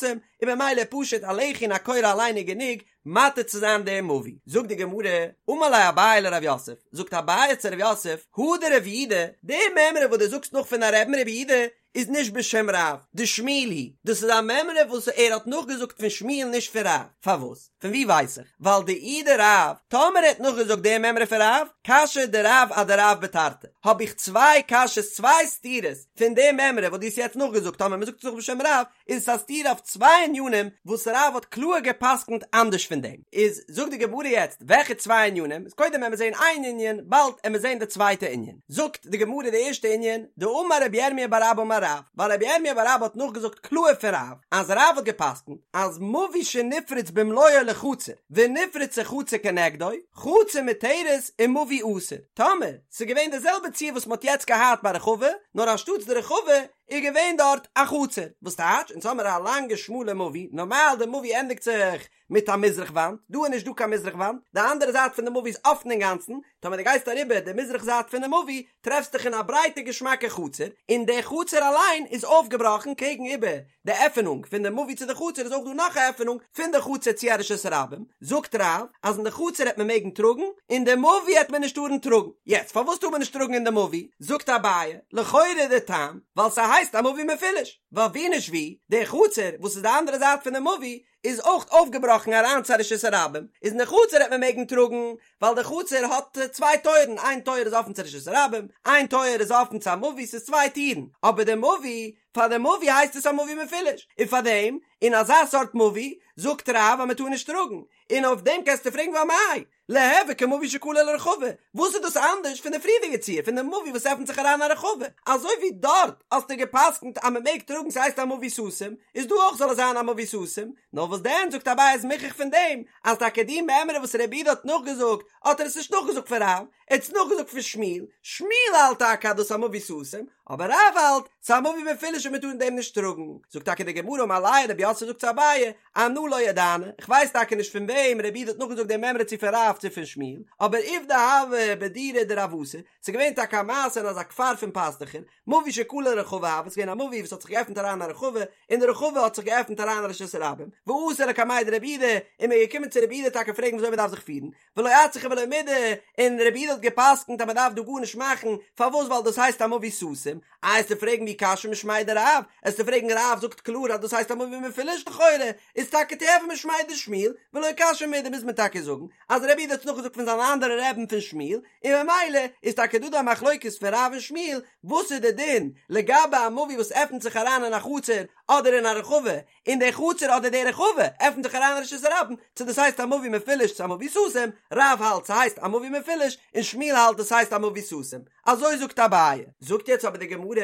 און ממילא פשוט א לחי און א קורה אליין איז גענוג מתיר צו זיין דעם מבוי. זאגט די גמרא, אמר ליה אביי לרב יוסף, זאגט אביי צו רב יוסף, הא דרב יהודה, די מימרא וואס דו זאגסט נאך פון א רבי'ן רב יהודה, איז נישט בשם רב, דשמואל היא, דאס איז א מימרא וואס ער האט נאכגעזאגט פון שמואל נישט פון רב, פארוואס? פון ווי ווייס איך? ווייל דאי דרב, טאמער ער האט נאכגעזאגט די מימרא פון רב, קשיא דרב אדרב בתרתי, האב איך צוויי קשיות צוויי סתירות פון די מימרא וואס דו האסט יעצט נאכגעזאגט טאמער מען זאגט עס נאך בשם רב, איז עס א סתירה אויף צוויי ענינים וואס רב האט קלאר גע'פסק'נט אנדערש פון דעם. איז זאגט די גמרא יעצט וועלכע צוויי ענינים, איז קודם עמיר זעהן איין ענין, באלד עמיר זעהן די צווייטע ענין. זאגט די גמרא די ערשטע ענין, דאמר רבי ירמיה בר אבא אמר בר רב, ווייל רבי ירמיה בר אבא האט נאכגעזאגט קלאהר פון רב, אז רב האט גע'פסק'נט אז מבוי שנפרץ במלואו לחצר ונפרצה חצר כנגדו, חצר מותרת ומבוי אסור. טאמער ס'איז געווען די זעלבע ציור וואס מ'האט יעצט געהאט ביי רחבה, נאר אנשטאטס די רחבה איז געווען דארט א חצר, וואס טייטש, אונז האמער א לאנגע שמאלע מבוי, נארמאל די מבוי ענדיגט זיך מיט א מזרח וואנט, דא איז נישט דא קיין מזרח וואנט, די אנדערע זייט פון די מבוי איז אפן אינגאנצן, טאמער דו גייסט אריבער די מזרח זייט פונעם מבוי, טרעפסט דיך אין א ברייטע געשמאקע חצר, און די חצר אליין איז אויפגעבראכן קעגן איבער די עפענונג פון די מבוי צו די חצר איז אויך דא נאך א עפענונג פון די חצר צו א רשות הרבים, זאגט רב אז אין די חצר העט מען מעגן טראגן, אין די מבוי העט מען נישט טארן טראגן, יעצט פארוואס טאר מען נישט טראגן אין די מבוי? זאגט אביי, לכאורה די טעם, ווייל ס'הייסט א מבוי מפולש, ווייל ווי נישט ווי, די חצר וואס איז די אנדערע זייט פון די מבוי איז אויך אויפגעבראכן אריין צו א רשות הרבים, איז אין די חצר העט מען מעגן טראגן, ווייל די חצר האט צוויי טויערן, איין טויער איז אפן צו רשות הרבים, איין טויער איז אפן צו א מבוי, ס'איז צוויי טירן, אבער די מבוי, פאר די מבוי הייסט עס א מבוי מפולש, און פאר דעם, אין אזא סארט מבוי, זאגט רב אז מען טאר נישט טראגן, און אויף דעם קענסטו פרעגן ואמאי, ליהוי כמבוי שכלה לרחבה, וואס איז דאס אנדערש פון די פריערדיגע ציור פון די מבוי וואס עפנט זיך אריין א רחבה, אזוי ווי דארט האסטו גע'פסק'נט אז מען מעג טראגן ס'הייסט א מבוי סתום, איז דא אויך זאל עס זיין א מבוי סתום, נאר וואס דען זאגט אביי איז מוכח פון דעם אז טאקע די מימרא וואס רב יהודה האט נאכגעזאגט האט ער עס נישט נאכגעזאגט פון רב, ער האט עס נאכגעזאגט פון שמואל, שמואל האלט טאקע אז דאס איז א מבוי סתום, אבער רב האלט ס'איז א מבוי מפולש און מען טאר אין דעם נישט טראגן, זאגט טאקע די גמרא אמר ליה רב יוסף זאגט צו אביי, אנא לא ידענא, איך ווייס טאקע נישט פון וועם רב יהודה האט נאכגעזאגט די מימרא צו פון רב צו פון שמואל, אבער עובדא הוה בדורא דרעותא, ס'איז געווען טאקע א מעשה אין אזא כפר פון פאסטוכער, מבוי שכלה לרחבה הוה, ס'איז געווען א מבוי וואס האט זיך געעפנט אריין אין א רחבה, און די רחבה האט זיך געעפנט אריין אין רשות הרבים, ואתו לקמיה דרב יהודה, און מ'איז געקומען צו רב יהודה טאקע פרעגן וויאזוי מ'דארף זיך פירן, ולא אצרכו ולא מידי, און רב יהודה האט געפסקנט אז מען דארף דא גארנישט מאכן, פארוואס ווייל דאס הייסט א מבוי סתום, איי עסטו פרעגן ואי קשיא משמיה דרב, עסטו פרעגן רב זאגט קלאר אז דאס הייסט א מבוי מפולש לכאורה איז טאקע תיהוי משמיה דשמואל, ולא קשיא מידי מוז מען טאקע זאגן אז רב יהודה האט עס נאכגעזאגט פון זיין אנדערע רבי'ן פון שמואל, און ממילא איז טאקע דא דא א מחלוקת פון רב און שמואל וואס איז די דין לגבי א מבוי וואס עפנט זיך אריין אין א חצר אדער אין א רחבה, און די חצר אדער די רחבה עפנט זיך אריין אין רשות הרבים, צו דאס הייסט א מבוי מפולש צו א מבוי סתום, רב האלט ס'הייסט א מבוי מפולש און שמואל האלט דאס הייסט א מבוי סתום, אזוי זאגט אביי. זאגט יעצט אבער די גמרא,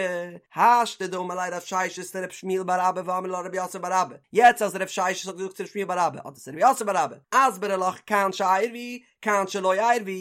השתא דאמר ליה רב ששת לרב שמואל בר אבא ואמרי לה רב יוסף בר אבא, יעצט אז רב ששת האט געזאגט צו רב שמואל בר אבא אדער צו רב יוסף בר אבא, אסברא לך כאן שעירבו, כאן שלא עירבו,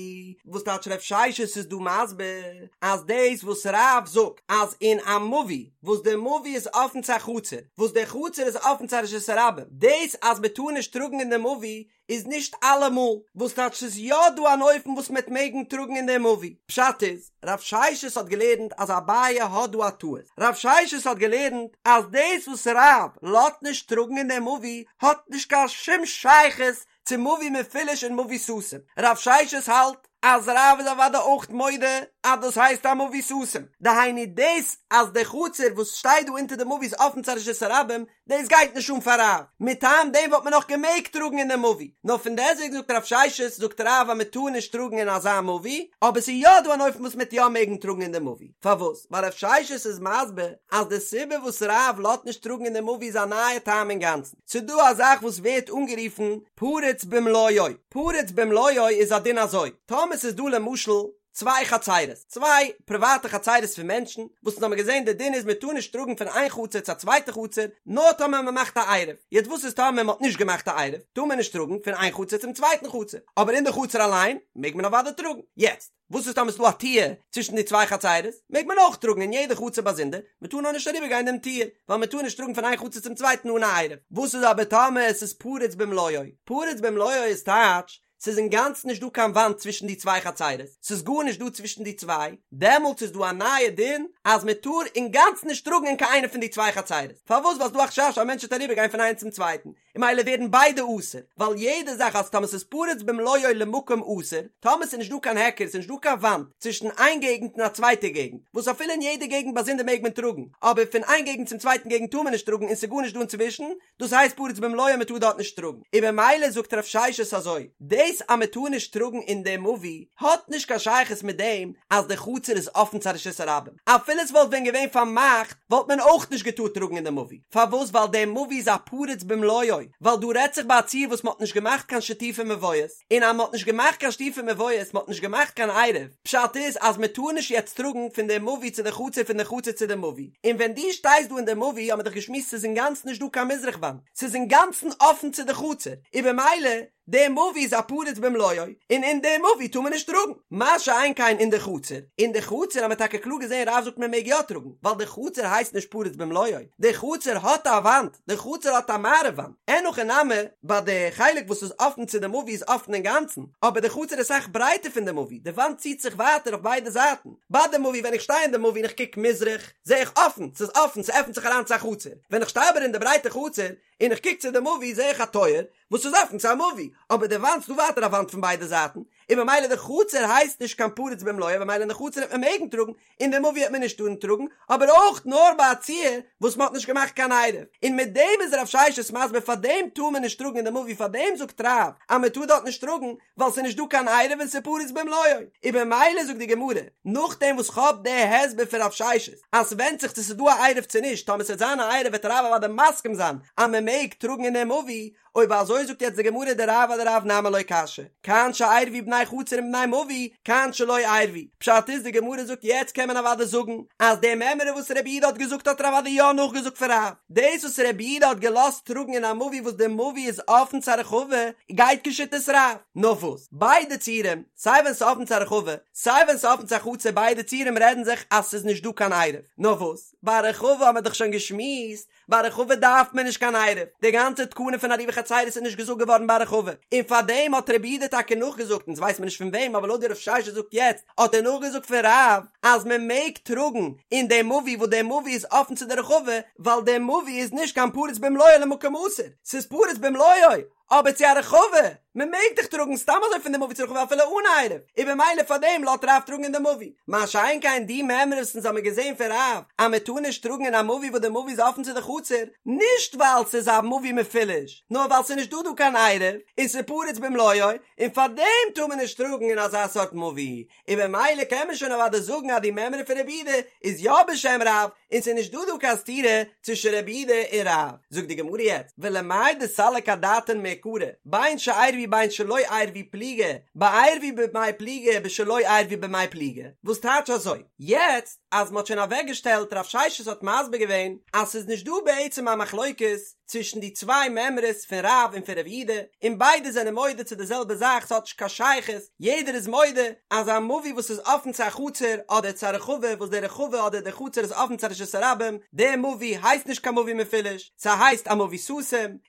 וואס טייטש רב ששת איז דא מסביר אז דאס וואס רב זאגט אז אין א מבוי וואס די מבוי איז אפן צו א חצר וואס די חצר איז אפן צו א רשות הרבים דאס אז מען טאר נישט טראגן אין די מבוי איז נישט אלעמאל, וואס טייטש ס'איז יא דא אן אופן וואס מ'עט מעגן טראגן אין די מבוי, פשט איז רב ששת האט געלערנט אז אביי האט דא א טעות, רב ששת האט געלערנט אז דאס וואס רב לאזט נישט טראגן אין די מבוי האט נישט קיין שום שייכות צו מבוי מפולש און מבוי סתום. רב ששת האלט אז רב איז אוודאי אויך מודה אז דאס הייסט א מבוי סתום. דהיינו דאס אז די חצר וואס שטייט דא אונטער די מבוי איז אפן צו א רשות הרבים, דאס גייט נישט אן פאר רב. מטעם דעם וואלט מען נאך געמעגט טראגן אין די מבוי. נאר פון דעסוועגן זאגט רב ששת זאגט רב אז מען טאר נישט טראגן אין אזא מבוי, אבער ס'איז יא דא אן אופן וואס מ'עט יא מעגן טראגן אין די מבוי. פארוואס? ווייל רב ששת איז מסביר אז די סיבה וואס רב לאזט נישט טראגן אין די מבוי איז א נייע טעם אינגאנצן. ס'דא א זאך וואס ווערט אנגערופן פרוץ במלואו, פרוץ במלואו איז א דין אזוי, טאמער ס'איז דא למשל צוויי חצירות, צוויי פריוואטע חצירות פון מענטשן, וואס אונז האמיר געזען די דין איז מ'טאר נישט טראגן פון איין חצר צו א צווייטע חצר, נאר טאמער מ'מאכט א עירוב, יעצט וואס איז טאמער מ'האט נישט געמאכט א עירוב, טאר מען נישט טראגן פון איין חצר צום צווייטן חצר, אבער אין די חצר אליין מעג מען אוודאי טראגן, יעצט. וואס איז טאמער ס'דא א טיר צווישן די צוויי חצירות? מעג מען אויך טראגן אין יעדע חצר באזונדער, מען טאר נאר נישט אריבער גיין דעם טיר, ווייל מען טאר נישט טראגן פון איין חצר צום צווייטן אן א עירוב. וואס איז אבער טאמער עס איז פרוץ במלואו? פרוץ במלואו איז טייטש, ס'איז אינגאנצן נישט דא קיין וואנט צווישן די צוויי חצירות, ס'איז גארנישט דא צווישן די צוויי, דעמאלטס איז דא א נייע דין אז מען טאר אינגאנצן נישט טראגן אין קיין איינע פון די צוויי חצירות. פארוואס? ווייל ס'איז דא א חשש אז א מענטש וועט אריבער גיין פון איינס צום צווייטן, און ממילא ווערן ביידע אסור, ווייל יעדע זאך אז טאמער ס'איז פרוץ במלואו למקום אסור, טאמער ס'איז נישט דא קיין היכר, ס'איז נישט דא קיין וואנט צווישן איין געגנט און א צווייטע געגנט, וואס אפילו אין יעדע געגנט באזונדער מעג מען טראגן, אבער פון איין געגנט צום צווייטן געגנט טאר מען נישט טראגן און ס'איז גארנישט דא אינצווישן, דאס הייסט פרוץ במלואו מ'טאר דארט נישט טראגן. און ממילא זאגט רב ששת אזוי, דאס אז מ'טאר נישט טראגן אין די מבוי האט נישט קיין שייכות מיט דעם אז די חצר איז אפן צו א רשות הרבים, אפילו. אפילו עס וואלט ווען געווען פארמאכט וואלט מען אויך נישט געטארט טראגן אין די מבוי, פארוואס ווייל די מבוי איז א פרוץ במלואו, ווייל דא רעדט זיך ביי א ציור וואס מען האט נישט געמאכט קיין שיתופי מבואות, און אז מען האט נישט געמאכט קיין שיתופי מבואות, מען האט נישט געמאכט קיין עירוב, פשט איז אז מען טאר נישט יעצט טראגן פון די מבוי צו די חצר פון די חצר צו די מבוי, און ווען דו שטייסט דא אין די מבוי האט מען דאך געשמועסט ס'איז אינגאנצן נישט דא קיין מזרח וואנט, ס'איז אינגאנצן אפן צו די חצר, און במילא די מבוי איז א פרוץ במלואו, און אין די מבוי טאר מען נישט טראגן, מה שאין כן אין די חצר, אין די חצר האט מען טאקע קלאר געזען רב זאגט מען מעג יא טראגן, ווייל די חצר הייסט נישט פרוץ במלואו, די חצר האט א וואנט, די חצר האט א מערב וואנט, אין הכי נמי, ביי די חלק וואס איז אפן צו די מבוי איז אפן אינגאנצן, אבער די חצר איז אסאך ברייטער פון די מבוי, די וואנט ציט זיך ווייטער אויף ביידע זייטן, ביי די מבוי ווען איך שטיי אין די מבוי און איך קוק מזרח, זע איך אפן, ס'איז אפן, ס'עפנט זיך אריין צו א חצר, ווען איך שטיי אבער אין די ברייטע חצר, און איך קוק צו די מבוי זע איך א טויער וואס איז אפן צו א מבוי, אבער די וואנט ס'דא ווייטער א וואנט פון ביידע זייטן, און במילא די חצר הייסט נישט קיין פרוץ במלואו במילא אין די חצר וועט מען מעגן טראגן, אין די מבוי וועט מען נישט טארן טראגן, אבער אויך נאר ביי א ציור וואס מען האט נישט געמאכט קיין עירוב, און מיט דעם איז רב ששת מסביר פארדעם טאר מען נישט טראגן אין די מבוי פארדעם זאגט רב אז מען טאר דארט נישט טראגן ווייל ס'איז נישט דא קיין עירוב און ס'איז פרוץ במלואו, און במילא זאגט די גמרא נאכדעם וואס כ'האב די הסבר פון רב ששת אז ס'ווענדט זיך צו ס'איז דא א עירוב צו נישט, טאמער ס'וועט זיין א עירוב וועט רב אוודאי מסכים זיין אז מען מעג טראגן אין די מבוי, אויב אזוי זאגט יעצט די גמרא דרב אדרב נמי לא קשיא, כאן שעירבו בני חצר עם בני מבוי, כאן שלא עירבו, פשט איז די גמרא זאגט יעצט קען מען אוודאי זאגן אז די מימרא וואס רבי יהודה האט געזאגט האט ער אוודאי יא נאכגעזאגט פון רב, דאס וואס רבי יהודה האט געלאזט טראגן אין א מבוי וואס די מבוי איז אפן צו א רחבה גייט כשיטת רב, נאר וואס ביידע ציורים סיי ווען ס'איז אפן צו א רחבה סיי ווען ס'איז אפן צו א חצר ביידע ציורים רעדן זיך אז ס'איז נישט דא קיין עירוב, נאר וואס ביי א רחבה האט מען דאך שוין געשמועסט ביי רחבה דארף מען נישט קיין עירוב, די גאנצע תקנה פון עירובי חצירות איז נישט געזאגט געווארן ביי רחבה, און פארדעם האט רבי יהודה טאקע נאכגעזאגט, אונז ווייסט מען נישט פון וועם אבער לויט ווי רב ששת זאגט יעצט האט ער נאכגעזאגט פון רב אז מען מעג טראגן אין די מבוי וואס די מבוי איז אפן צו די רחבה ווייל די מבוי איז נישט קיין פרוץ במלואו למקום אסור, ס'איז פרוץ במלואו אבער צו א רחבה, מען מעג דאך טראגן סתם אזוי פון די מבוי צו רחבה אפילו אן עירוב, און במילא פאר דעם לאזט רב טראגן אין די מבוי. מה שאין כן די מימרא וואס אונז האמיר געזען פון רב אז מען טאר נישט טראגן אין א מבוי וואס די מבוי איז אפן צו די חצר, נישט ווייל ס'איז א מבוי מפולש, נאר ווייל ס'איז נישט דא דא קיין עירוב, און ס'איז פרוץ במלואו, און פאר דעם טאר מען נישט טראגן אין אזא סארט מבוי, און במילא קען מען שוין אוודאי זאגן אז די מימרא פון רבי יהודה איז יא בשם רב, און ס'איז נישט דא דא קיין סתירה צווישן רבי יהודה און רב. זאגט די גמרא יעצט, ולמאי דסליק אדעתין מעיקרא, בין שעירבו בין שלא עירבו פליגי, בעירבו במאי פליגי בשלא עירבו במאי פליגי, וואס טייטש אזוי? יעצט אז מ'האט שוין אוועקגעשטעלט רב ששת האט מסביר געווען אז ס'איז נישט דא בעצם א מחלוקת צווישן די צוויי מימרות פון רב און פון רבי יהודה, און ביידע זענען מודה צו די זעלבע זאך ס'האט נישט קיין שייכות, יעדער איז מודה אז א מבוי וואס איז אפן צו א חצר אדער צו א רחבה וואס די רחבה אדער די חצר איז אפן צו א רשות הרבים, די מבוי הייסט נישט קיין מבוי מפולש, ס'הייסט א מבוי סתום,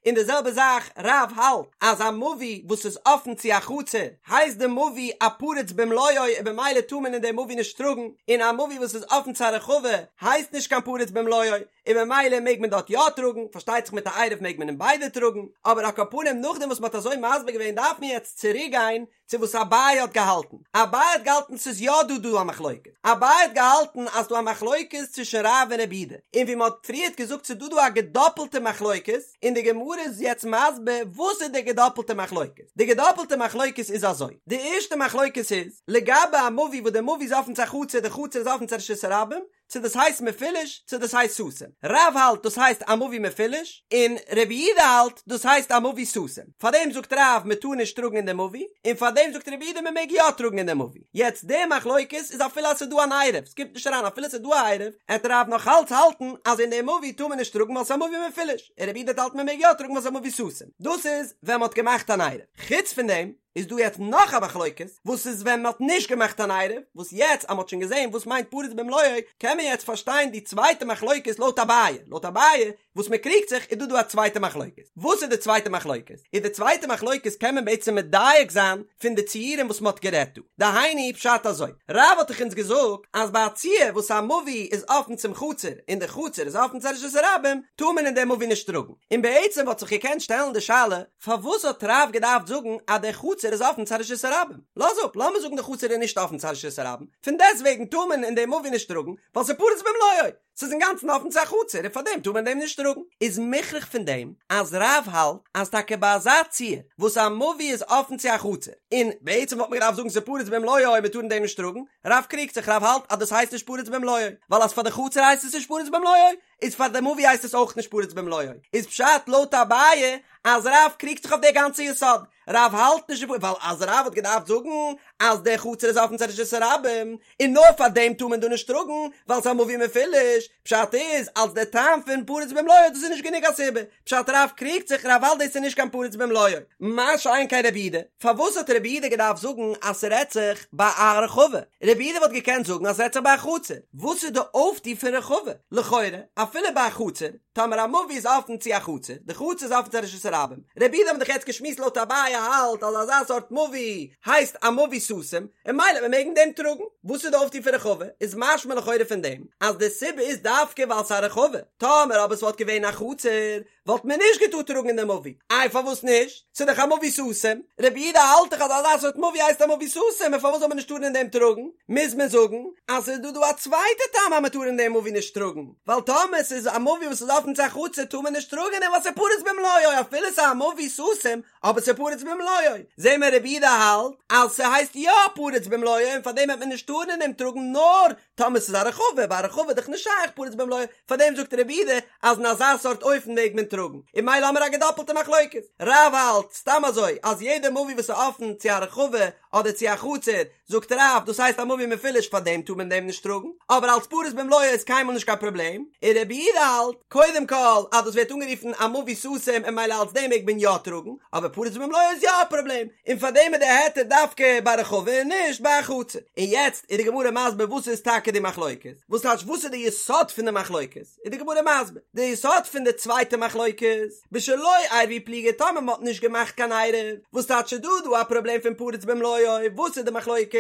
און די זעלבע זאך רב האלט אז א מבוי וואס איז אפן צו א חצר הייסט די מבוי א פרוץ במלואו און במילא טאר מען אין די מבוי נישט טראגן, און א מבוי וואס איז אפן צו א רחבה הייסט נישט קיין פרוץ במלואו. און ממילא מעג מען דארט יא טראגן, פארשטייט זיך מיט א עירוב מעג מען אין ביידע טראגן, אבער על כל פנים נאכדעם וואס מ'האט אזוי מסביר געווען דארף מען יעצט צוריק גיין צו וואס אביי האט געהאלטן, אביי האט געהאלטן ס'איז יא דא דא א מחלוקת, אביי האט געהאלטן אז ס'דא א מחלוקת צווישן רב און רבי יהודה, און ווי מ'האט פריערט געזאגט ס'איז דא דא א געדאפלטע מחלוקת, און די גמרא איז יעצט מסביר וואס איז די געדאפלטע מחלוקת, די געדאפלטע מחלוקת איז אזוי, די ערשטע מחלוקת איז, לגבי א מבוי וואס די מבוי איז אפן צו א חצר די חצר איז אפן צו רשות הרבים, צו דאס הייסט מפולש צו דאס הייסט סתום. רב האלט דאס הייסט א מבוי מפולש, און רבי יהודה האלט דאס הייסט א מבוי סתום. פארדעם זאגט רב מען טאר נישט טראגן אין די מבוי, און פארדעם זאגט רבי יהודה מען מעג יא טראגן אין די מבוי. יעצט די מחלוקת איז אפילו אז ס'איז דא אן עירוב, ס'קומט נישט אריין אפילו ס'איז דא א עירוב, עט רב נאך אלץ האלטן אז אין די מבוי טאר מען נישט טראגן ווייל ס'איז א מבוי מפולש, און רבי יהודה האלט מען מעג יא טראגן ווייל ס'איז א מבוי סתום. דאס איז ווען מ'האט געמאכט אן עירוב. חוץ פון דעם. איז דא יעצט נאך א מחלוקת, וואס איז ווען מ'האט נישט געמאכט אן עירוב, וואס יעצט אז מ'האט שוין געזען וואס מיינט פרוץ במלואו, קען מען יעצט פארשטיין די צווייטע מחלוקת לויט אביי, לויט אביי וואס מ'קריגט זיך איז דא דא א צווייטע מחלוקת, וואס איז די צווייטע מחלוקת? איז די צווייטע מחלוקת קען מען בעצם מדייק זיין פון די ציורים וואס מ'האט גערעדט דא, דהיינו פשט אזוי, רב האט דאך אונז געזאגט אז ביי א ציור וואס א מבוי איז אפן צום חצר און די חצר איז אפן צו רשות הרבים טאר מען אין די מבוי נישט טראגן, און בעצם וואלט זיך געקענט שטעלן די שאלה, פארוואס האט רב געדארפט זאגן אז די חצר חצר איז אפן צו א רשות הרבים, לאז אפ, לאמיר זאגן די חצר איז נישט אפן צו א רשות הרבים, פון דעסטוועגן טאר מען אין די מבוי נישט טראגן, ווייל ס'איז פרוץ במלואו, ס'איז אינגאנצן אפן צו א חצר און פארדעם טאר מען אין דעם נישט טראגן. איז מוכרח פון דעם אז רב האלט אז טאקע ביי אזא ציור וואס א מבוי איז אפן צו א חצר, און בעצם וואלט מען געדארפט זאגן ס'איז פרוץ במלואו און מ'טאר אין דעם נישט טראגן, רב קריגט זיך, רב האלט אז דאס הייסט נישט פרוץ במלואו, ווייל אז פאר די חצר הייסט עס נישט פרוץ במלואו, איז פאר די מבוי הייסט עס אויך נישט פרוץ במלואו, איז פשט לויט אביי אז רב קריגט זיך אויף די גאנצע יסוד, רב האלט נישט ווייל אז רב האט געדארפט זאגן אז די חצר איז אפן צו רשות הרבים און נאר פאר דעם טאר מען דא נישט טראגן ווייל ס'איז א מבוי מפולש, פשט איז אלס די טעם פון פרוץ במלואו דאס איז נישט גענוג א סיבה, פשט רב קריגט זיך רב האלט דאס איז נישט קיין פרוץ במלואו. מה שאין כן רבי יהודה, פארוואס האט רבי יהודה געדארפט זאגן אז ס'רעדט זיך ביי א רחבה? רבי יהודה וואלט געקענט זאגן אז ס'רעדט זיך ביי א חצר, וואס איז די אויפטו פון רחבה? לכאורה אפילו ביי א חצר, טאמער א מבוי איז אפן צו א חצר, די חצר איז אפן צו א רשות הרבים, רבי יהודה האבן דאך יעצט געשמועסט לויט אביי האלט אז אזא סארט מבוי הייסט א מבוי סתום, און ממילא וועט מען מעגן דעם טראגן. וואס איז די אויפטו פון רחבה? איז משמע לכאורה פון דעם אז די סיבה איז דווקא ווייל ס'איז א רחבה, טאמער אבער ס'וואלט געווען א חצר וואלט מען נישט געטארט טראגן אין די מבוי, איי פארוואס נישט? ס'איז דאך א מבוי סתום, רבי יהודה האלט דאך אז אזא סארט מבוי הייסט א מבוי סתום און פארוואס זאל מען נישט טארן אין דעם טראגן? מוז מען זאגן אז ס'איז דא דא א צווייטע טעם אז מען טאר אין דעם מבוי נישט טראגן, ווייל טאמער ס'איז א מבוי וואס איז אפן צו א חצר טאר מען נישט טראגן אין דעם ווייל ס'איז פרוץ במלואו אפילו ס'איז א מבוי סתום אבער ס'איז פרוץ במלואו, זעהן מיר רבי יהודה האלט אז ס'הייסט יא פרוץ במלואו און פארדעם וועט מען נישט טארן אין דעם טראגן נאר טאמער ס'איז א רחבה, ביי א רחבה איז דאך נישט שייך פרוץ במלואו, פארדעם זאגט רבי יהודה אז אין אזא סארט אופן מעג מען טראגן, און ממילא האמיר א געדאפלטע מחלוקת, רב האלט סתם אזוי אז יעדע מבוי וואס איז אפן צו א רחבה אדער צו א חצר, זאגט רב דאס הייסט א מבוי מפולש פארדעם טאר מען דעם נישט טראגן, אבער אלס פרוץ במלואו איז קיינמאל נישט קיין פראבלעם, און רבי יהודה האלט קודם כל אז דאס ווערט אנגערופן א מבוי סתום און ממילא אלס דעם מעג מען יא טראגן, אבער פרוץ במלואו איז יא א פראבלעם, און פאר דעם איז די היתר דווקא ביי רחבה און נישט ביי א חצר. און יעצט איז די גמרא מסביר וואס איז טאקע די מחלוקת, וואס טייטש וואס איז די יסוד פון די מחלוקת, איז די גמרא מסביר, די יסוד פון די צווייטע מחלוקת, בשלא עירבו פליגי טאמער מען האט נישט געמאכט קיין עירוב, וואס טייטש איז דא דא א פראבלעם פון פרוץ במלואו, וואס איז די מחלוקת,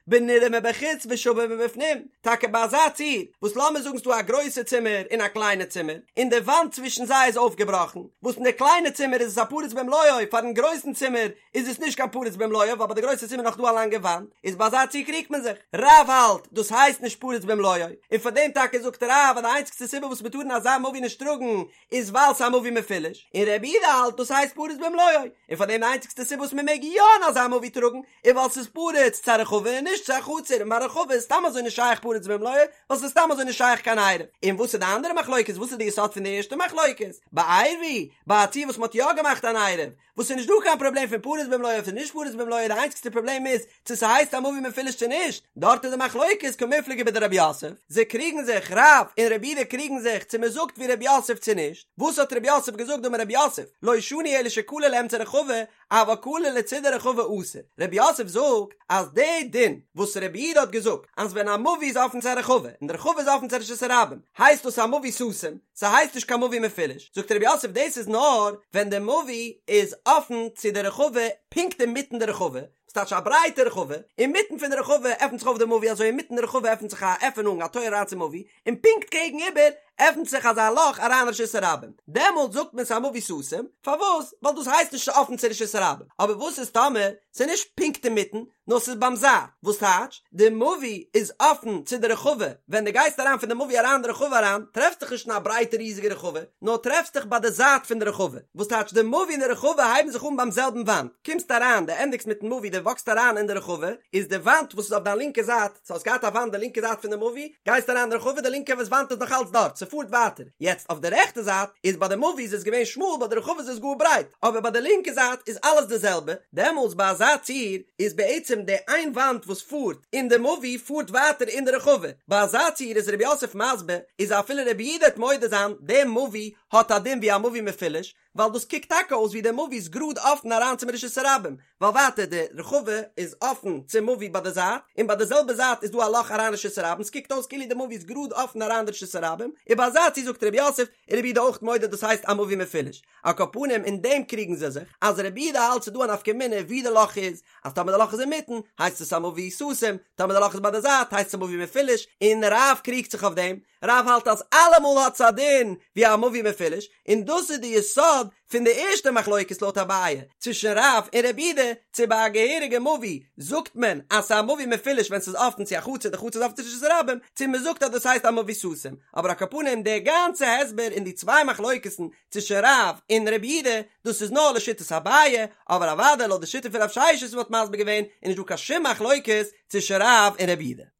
בנראה מבחוץ ושווה מבפנים, טאקע ביי אזא ציור, וואס לאמיר זאגן ס'דא א גרויסע צימער און א קליינע צימער, און די וואנט צווישן זיי איז אויפגעבראכן, וואס אין די קליינע צימער איז עס א פרוץ במלואו, פארן גרויסן צימער איז עס נישט קיין פרוץ במלואו, ווייל ביי די גרויסע צימער נאך דא א לאנגע וואנט, איז ביי אזא ציור קריגט מען זיך. רב האלט, דאס הייסט נישט פרוץ במלואו, און פאר דעם טאקע זאגט רב אז די איינציגסטע סיבה וואס מ'טאר אין אזא מבוי נישט טראגן, איז ווייל ס'איז א מבוי מפולש, און רבי יהודה האלט דאס הייסט פרוץ במלואו, און פאר דעם די איינציגסטע סיבה וואס מ'מעג יא אין אזא מבוי טראגן, איז ווייל ס'איז פרוץ צו א רחבה און נישט צו א חצר, און ביי רחבה איז סתם אזוי נישט שייך פרוץ במלואו, ווייל ס'איז סתם אזוי נישט שייך קיין עירוב. און וואס איז די אנדערע מחלוקת? וואס איז די יסוד פון די ערשטע מחלוקת? בעירבו, ביי א ציור וואס מ'האט יא געמאכט אן עירוב, וואס ס'איז נישט דא קיין פראבלעם פון פרוץ במלואו אדער נישט פרוץ במלואו, די איינציגסטע פראבלעם איז צו ס'הייסט א מבוי מפולש צו נישט, דארט איז די מחלוקת קמיפלגי בדרב יוסף, זיי קריגן זיך, רב און רבי יהודה קריגן זיך צו מ'זאגט ווי רב יוסף צו נישט, וואס האט רב יוסף געזאגט דאמר רב יוסף, לא שנו אלא שקלור לאמצע רחבה, אבל קלור לצידי רחבה אסור, רב יוסף זאגט אז די דין וואס רבי יהודה האט געזאגט אז ווען א מבוי איז אפן צו א רחבה און די רחבה איז אפן צו רשות הרבים הייסט דאס א מבוי סתום, ס'הייסט נישט קיין מבוי מפולש, זאגט רב יוסף דאס איז נאר ווען די מבוי איז אפן צו די רחבה פונקט אינמיטן די רחבה, ס'טייטש א ברייטע רחבה, אינמיטן פון די רחבה עפנט זיך אויף די מבוי אזוי אינמיטן די רחבה עפנט זיך א עפענונג א טויער אריין צום מבוי, און פונקט קעגן איבער עפנט זיך אזא לאך אריין רשות הרבים, דעמאלט זאגט מען ס'איז א מבוי סתום, פארוואס? ווייל דאס הייסט נישט אפן צו רשות הרבים, אבער וואס איז טאמער ס'איז נישט פונקט אינמיטן, נאר ס'איז ביים זייט, וואס טייטש? די מבוי איז אפן צו די רחבה, ווען דו גייסט אריין פון די מבוי אריין אין די רחבה אריין, טרעפסט דיך נישט אין א ברייטע ריזיגע רחבה, נאר טרעפסט דיך ביי די זייט פון די רחבה, וואס טייטש די מבוי און די רחבה הייבן זיך אן ביים זעלבן וואנט, קומסט אריין, דו ענדיגסט מיטן מבוי, דו וואקסט אריין אין די רחבה, איז די וואנט וואס איז אויף דיין לינקע זייט, סאו האסט געהאט א וואנט די לינקע זייט פון די מבוי, גייסט אריין אין די רחבה, די לינקע וואנט איז נאך אלץ דארט, ס'פארט ווייטער, יעצט אויף די רעכטע זייט איז ביי די מבוי איז עס געווען שמאל ביי די רחבה איז עס גאר ברייט, אבער ביי די לינקע זייט איז אלעס די זעלבע, דעמאלטס ביי אזא ציור איז בעצם די איין וואנט וואס פארט אין די מבוי פארט ווייטער אין די רחבה, ביי אזא ציור איז רב יוסף מסביר איז אפילו רבי יהודה וועט מודה זיין די מבוי האט א דין ווי א מבוי מפולש, ווייל דאס קוקט טאקע אויס ווי די מבוי איז גראד אפן אריין צום רשות הרבים, ווייל ווייטער די רחבה איז אפן צום מבוי ביי די זייט, און ביי די זעלבע זייט איז דא א לאך אריין רשות הרבים, ס'קוקט אויס כאילו די מבוי איז גראד אפן אריין די רשות הרבים, און ביי אזא ציור זאגט רב יוסף, איז רבי יהודה אויך מודה דאס הייסט א מבוי מפולש. על כל פנים אין דעם קריגן זיי זיך, אז רבי יהודה האלט ס'איז דא א נפקא מינה ווי די לאך איז, אז טאמער די לאך איז אינמיטן הייסט עס א מבוי סתום, טאמער די לאך איז ביי די זייט הייסט עס א מבוי מפולש, און רב קריגט זיך אויף דעם, רב האלט אז אלעמאל האט עס א דין ווי א מבוי מפולש, און דאס איז די יסוד פון די ערשטע מחלוקת לויט אביי צווישן רב און רבי יהודה, צו ביי א געהעריגע מבוי זאגט מען אז ס'איז א מבוי מפולש ווען ס'איז אפן צו א חצר די חצר איז אפן צו רשות הרבים, צו מ'זאגט אז דאס הייסט א מבוי סתום, אבער על כל פנים די גאנצע הסבר אין די צוויי מחלוקת'ן צווישן רב און רבי יהודה, דאס איז נאר לשיטת אביי, אבער אוודאי לויט די שיטה פון רב ששת וואס מ'האט מסביר געווען איז נישט דא קיין שום מחלוקת צווישן רב און רבי יהודה.